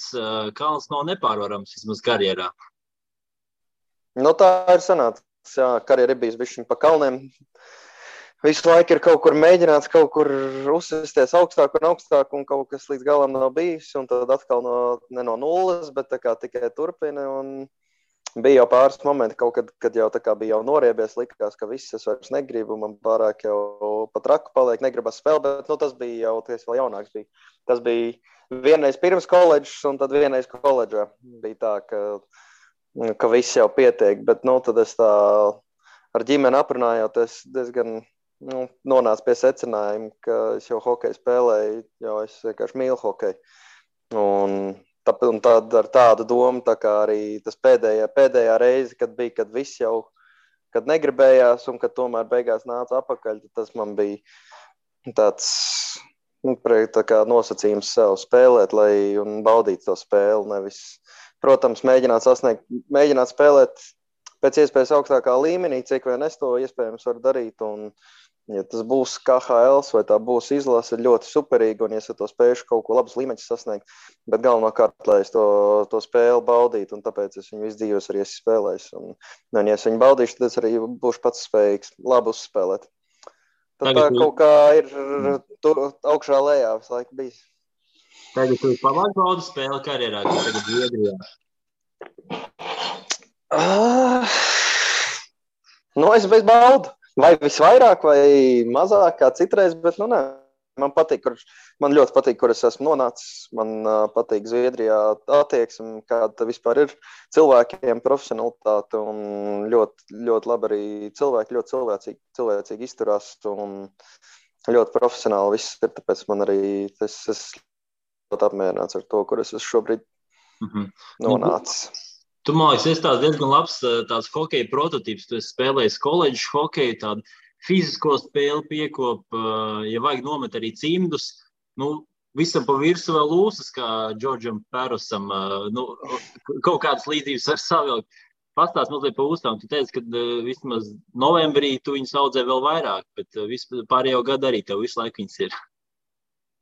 kalns nav nepārvarams vismaz karjerā. Tā ir sanāca. Jā, karjera ir bijis bišķiņ pa kalniem. Visu laiku ir kaut kur mēģināts, kaut kur uzsisties augstāk un kaut kas līdz galam nav bijis. Un tad atkal ne no nulles, bet tā kā tikai turpina. Un bija jau pāris momenti, kaut kad jau tā kā bija jau noriebies, likās, ka viss es vairs negribu. Man pārāk jau pat raku paliek, negribas spēlēt, bet tas bija jau, tas vēl jaunāks bija. Tas bija vienreiz pirms koledžas un tad vienreiz koledžā. Bija tā, ka viss jau pietiek, bet tad es tā ar ģimeni aprunājoties diezgan nonācu pie secinājuma, ka es jau hokeju spēlēju, jo es vienkārši mīlu hokeju. Un tad ar tādu domu, tā kā arī tas pēdējā reize, kad viss jau, kad negribējās un kad tomēr beigās nāca apakaļ, tas man bija tāds tā kā nosacījums sev spēlēt, un baudīt to spēli, nevis, protams, mēģināt spēlēt pēc iespējas augstākā līmenī, cik vien es to iespējams varu darīt, un ja tas būs KHL vai tā būs izlase, ļoti superīgi, un ja es to spējuši kaut ko labus līmeņus sasniegt, bet galvenokārt, lai es to spēli baudītu, un tāpēc es viņu visu dzīves arī esmu spēlējis, un ja es viņu baudīšu, tad es arī būšu pats spējīgs labi uzspēlēt. Tad tā kaut kā ir augšā lejā visu laiku bijis. Tagad tu pamāk baudu spēli karjerā, kas tagad Zviedrijā? Es bez baudu. Vai visvairāk, vai mazāk kā citreiz, bet nē. Man ļoti patīk, kur es esmu nonācis. Man patīk Zviedrijā attieksme, kāda vispār ir cilvēkiem, profesionalitāte un ļoti, ļoti labi arī cilvēki, ļoti cilvēcīgi izturās un ļoti profesionāli viss ir, tāpēc man arī es ļoti apmierināts ar to, kur es esmu šobrīd nonācis. Tu, man liekas, esi tāds diezgan labs tāds hokeja prototyps. Tu esi spēlējis koledžu hokeju, tādu fizisko spēli piekop, ja vajag nomet arī cimdus. Visam pa virsu vēl lūsas, kā Džordžam Pērosam. Kaut kādas līdzības var savilkt. Pastāst mazliet pa uztām. Tu teici, ka vismaz novembrī tu viņus audzē vēl vairāk, bet pārējo gadu arī tev visu laiku viņas ir.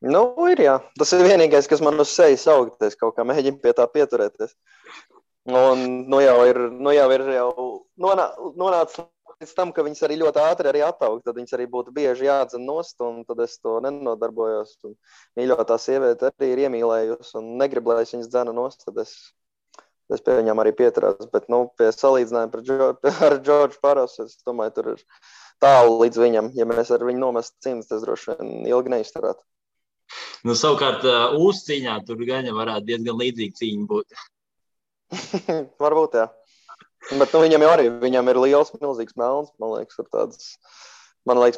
Ir jā. Tas ir vienīgais, kas man uz sejas augties, kaut kā mēģina pie tā pieturēties. Un jau ir nonācis līdz tam, ka viņas arī ļoti ātri arī attaug, tad viņas arī būtu bieži jādzen nost, un tad es to nenodarbojos. Un mīļotā sieviete arī ir iemīlējusi un negrib, lai es viņas dzenu nost, tad es pie viņām arī pieturās. Bet, pie salīdzinājuma ar Džordžu Parosu, es domāju, tur ir tālu līdz viņam. Ja mēs ar viņu nomestu cimdus, tas droši vien ilgi neizturētu. Savukārt, uzcīņā tur gan varētu diezgan līdzīga cīņa būt. Varbūt, jā. Bet viņam ir liels, milzīgs melns. Man liekas,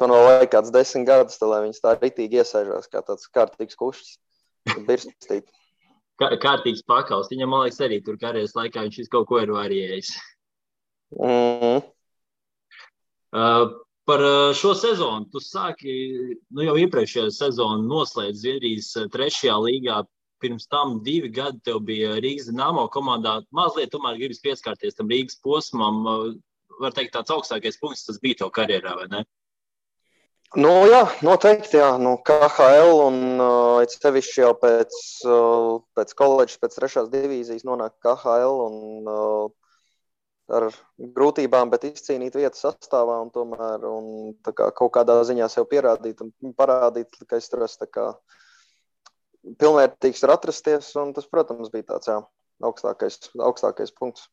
man vēl vajag kāds 10 gadus, lai viņas tā ritīgi iesēžās, kā tāds kārtīgs kušs. Birstīt. Kārtīgs pakals. Viņam, man liekas, arī tur karjeras laikā viņš kaut ko ir variējis. Par šo sezonu. Tu sāki, jau iepriekšējā sezonu noslēdz Zviedrijas 3. līgā. Pirms tam 2 gadi tev bija Rīgas Dinamo komandā. Mazliet tomēr gribas pieskārties tam Rīgas posmam. Var teikt, tāds augstākais punkts tas bija tev karjerā, vai ne? Jā, noteikti, jā. KHL un sevišķi jau pēc koledžas, pēc 3. divīzijas nonāk KHL un ar grūtībām, bet izcīnīt vietu sastāvā un tomēr tā kā kaut kādā ziņā sev pierādīt un parādīt, ka es tur esmu tā kā pilnvērtīgs var atrasties, un tas, protams, bija tāds, augstākais punkts.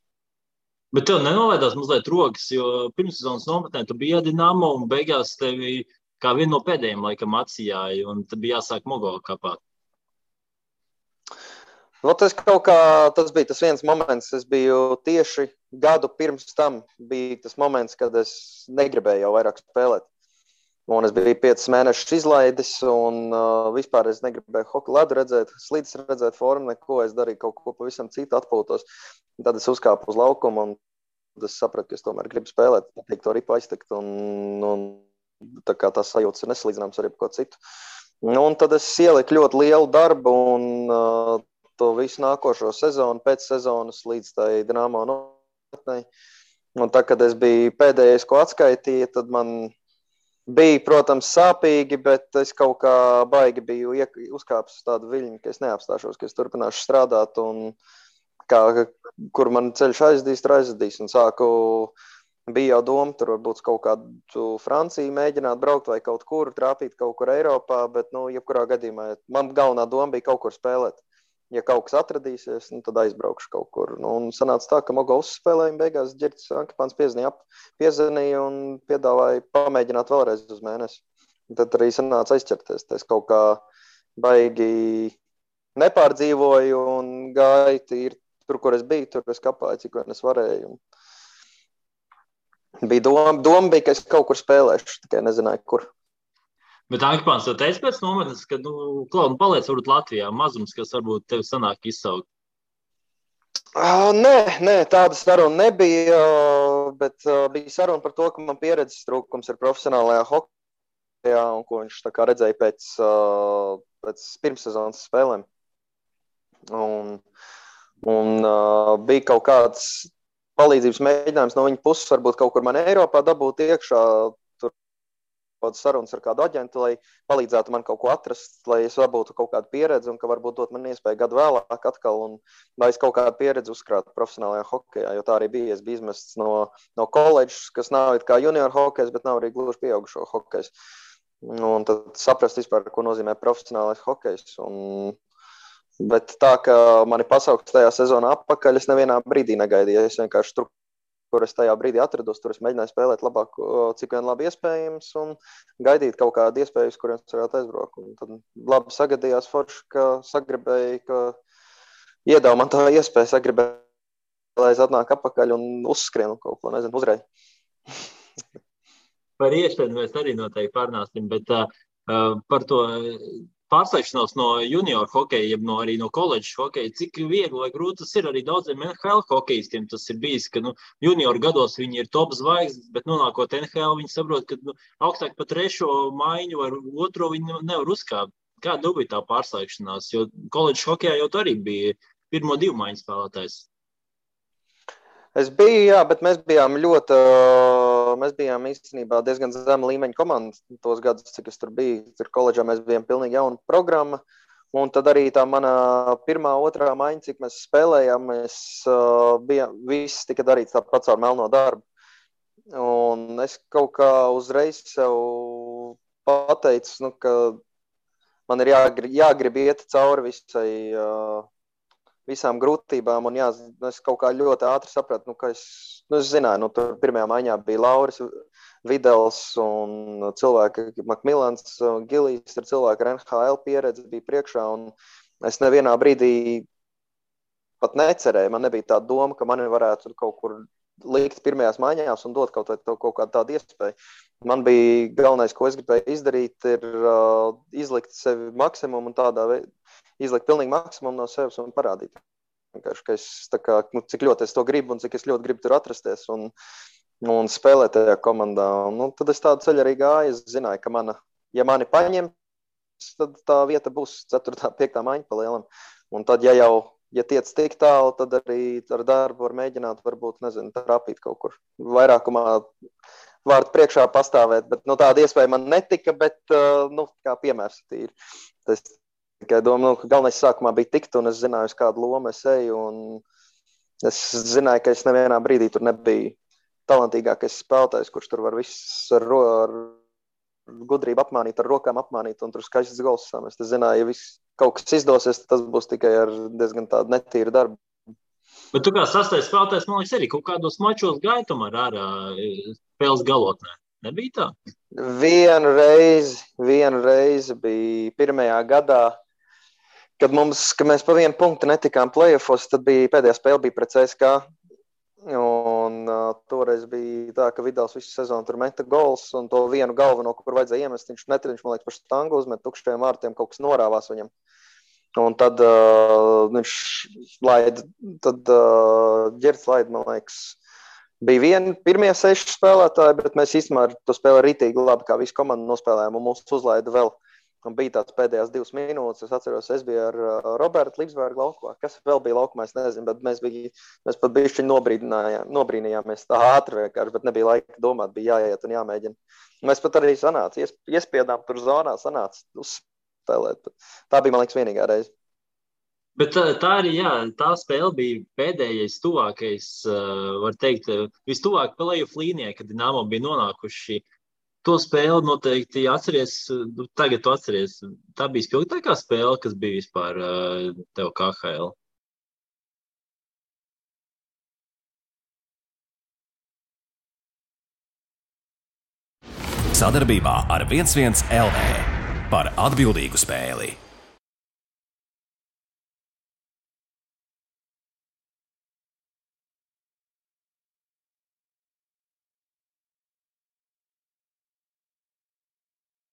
Bet tev nenovēdās mazliet rokas, jo pirmssezonas nometnē tu biji Dinamo, un beigās tevi kā vienu no pēdējiem laikam atsijāja, un tad bija jāsāk Mogo kapāt. Tas bija tas viens moments, es biju tieši gadu pirms tam, bija tas moments, kad es negribēju jau vairāk spēlēt. Un es biju 5 mēnešus izlaidis, un vispār es negribēju hokeju ledu redzēt, slīdes redzēt formu, neko. Es darīju kaut ko pavisam citu, atpūtos. Tad es uzkāpu uz laukumu, un es sapratu, ka es tomēr gribu spēlēt, patīk to ripu aiztekt. Un tā kā tās sajūtas ir nesalīdzināmas ar jebko citu. Un tad es ieliku ļoti lielu darbu un to visu nākošo sezonu, pēc sezonas līdz tai Dinamo nometnei. Un tā, kad es biju pēdējais, ko atskaitīja, tad man bija, protams, sāpīgi, bet es kaut kā baigi biju uzkāpis uz tādu viļņu, ka es neapstāšos, ka es turpināšu strādāt un kur man ceļš aizdīs un sāku, bija jau doma, tur varbūt kaut kādu Franciju mēģināt braukt vai kaut kur, trāpīt kaut kur Eiropā, bet, jebkurā gadījumā, man galvenā doma bija kaut kur spēlēt. Ja kaut kas atradīsies, tad aizbraukšu kaut kur. Un sanāca tā, ka Mogo uzspēlēja, beigās Ģirts Ankipāns piezvanīja un piedāvāja pamēģināt vēlreiz uz mēnesi. Un tad arī sanāca aizķerties. Es kaut kā baigi nepārdzīvoju un gāju tīri tur, kur es biju, tur es kapāju, cik vien es varēju. Bija doma bija, ka es kaut kur spēlēšu, tikai nezināju, kur. Bet Ankipāns jau teica pēc nometnes, ka, Klaud, paliec varbūt Latvijā, mazums, kas varbūt tevi sanāk izsaukt. Nē, tāda saruna nebija, bet bija saruna par to, ka man pieredzes trūkums ir profesionālajā hokejā un ko viņš tā kā redzēja pēc pirmssezonas spēlēm. Un bija kaut kāds palīdzības mēģinājums no viņa puses, varbūt kaut kur man Eiropā dabūt iekšā, sarunas ar kādu aģentu, lai palīdzētu man kaut ko atrast, lai es dabūtu kaut kādu pieredzi un ka varbūt dot man iespēju gadu vēlāk atkal un lai es kaut kādu pieredzi uzkrātu profesionālajā hokejā, jo tā arī bija. Es biju izmests no koledžas, kas nav kā junior hokejs, bet nav arī gluži pieaugušo hokejs. Un tad saprast vispār, ko nozīmē profesionālais hokejs. Bet tā, ka mani pasaukts tajā sezonā atpakaļ, es nevienā brīdī negaidīju. Es vienkārši tur, kur es tajā brīdī atrados, tur es mēģināju spēlēt labāk, cik vien labi iespējams, un gaidīt kaut kādu iespēju, uz kuriem es varētu aizbraukt. Un tad labi sagadījās forši, ka sagribēja, ka iedāva man tā iespēja, sagribēja, lai es atnāk atpakaļ un uzskrienu kaut ko, nezinu, uzreiz. Par iespēju mēs arī noteikti pārnāsim, bet par to pārslēgšanos no junior hokeja, jeb arī no koledžas hokeja, cik viegli vai grūti tas ir arī daudziem NHL hokejistiem. Tas ir bijis, ka junior gados viņi ir top zvaigznes, bet nonākot NHL, viņi saprot, ka augstāk pa trešo maiņu vai otro viņi nevar uzkāpt. Kāda bija tā pārslēgšanās? Jo koledžas hokejā jau arī bija pirmo 2 maiņu spēlētājs. Es biju, jā, bet mēs bijām īstenībā diezgan zema līmeņa komanda tos gadus, cik es tur biju. Tur koledžā mēs bijām pilnīgi jauna programma. Un tad arī tā mana pirmā, otrā maiņa, cik mēs spēlējām, viss tika darīts tāpat caur melno darbu. Un es kaut kā uzreiz sev pateicu, ka man ir jāgrib iet cauri visām grūtībām, un es kaut kā ļoti ātri sapratu, ka es zināju, tur pirmajā maiņā bija Lauris Videls un cilvēki, Makmilans, Gilijs, ir cilvēki ar NHL pieredzi, bija priekšā, un es nevienā brīdī pat necerēju, man nebija tā doma, ka mani varētu kaut kur likt pirmajās maiņās un dot kaut kādu tādu iespēju. Man bija galvenais, ko es gribēju izdarīt, ir izlikt sevi maksimumu un tādā veidā, izlikt pilnīgi maksimumu no sevis un parādīt. Ka es cik ļoti es to gribu un cik es ļoti gribu tur atrasties un spēlēt tajā komandā. Tad es tādu ceļu arī gāju. Es zināju, ka ja mani paņem, tad tā vieta būs 4. 5. maiņa pa lielam. Un tad, ja tiec tik tālu, tad arī ar darbu var mēģināt, varbūt, trāpīt kaut kur. Vairākumā vārdu priekšā pastāvēt, bet tāda iespēja man netika, bet kā piemērs tīri. Tas tikai domāju, ka galvenais sākumā bija tikt, un es zināju, uz kādu lomu es eju, un es zināju, ka es nevienā brīdī tur nebiju talantīgākais spēlētājs, kurš tur var viss ar gudrību apmānīt, ar rokām apmānīt, un tur skaists gols samest. Es zināju, ja kaut kas izdosies, tas būs tikai ar diezgan tādu netīru darbu. Bet tu kā sastais spēlētājs, man liekas, arī kaut kādos mačos gāja tomēr ārā spēles galotnē. Nebija tā? Vienu reizi bija pirmajā gadā, kad mēs pa 1 punktu netikām play-offos, tad pēdējā spēle bija pret CSKA. Un toreiz bija tā, ka Vidals visu sezonu tur meta gols, un to vienu galveno, kur vajadzēja iemest, viņš man liekas, par štangu uzmet tukšajiem vārtiem, kaut kas norāvās viņam. Un tad viņš Ģerts laida, man liekas, bija pirmie 6 spēlētāji, bet mēs īstenībā ar to spēli rītīgi labi, kā visu komandu nospēlējām, un mums uzlaida vēl. Un bija tāds pēdējās 2 minūtes, es atceros, es biju ar Robertu Līpsbergu laukumā. Kas vēl bija laukumā, es nezinu, bet mēs pat bišķiņ nobrīnījāmies tā ātri vienkārši, bet nebija laika domāt, bija jāiet un jāmēģina. Mēs pat arī iespiedām tur zonā, sanāca uzspēlēt. Tā bija, man liekas, vienīgā reize. Bet tā arī, jā, tā spēle bija pēdējais tuvākais, var teikt, vistuvāk play-off līnijai, kad Dinamo bija nonākuši. To spēli noteikti atceries, tagad tu atceries. Tā bija spilgtākā spēle, kas bija vispār tev KHL. Sadarbībā ar 11 LV par atbildīgu spēli.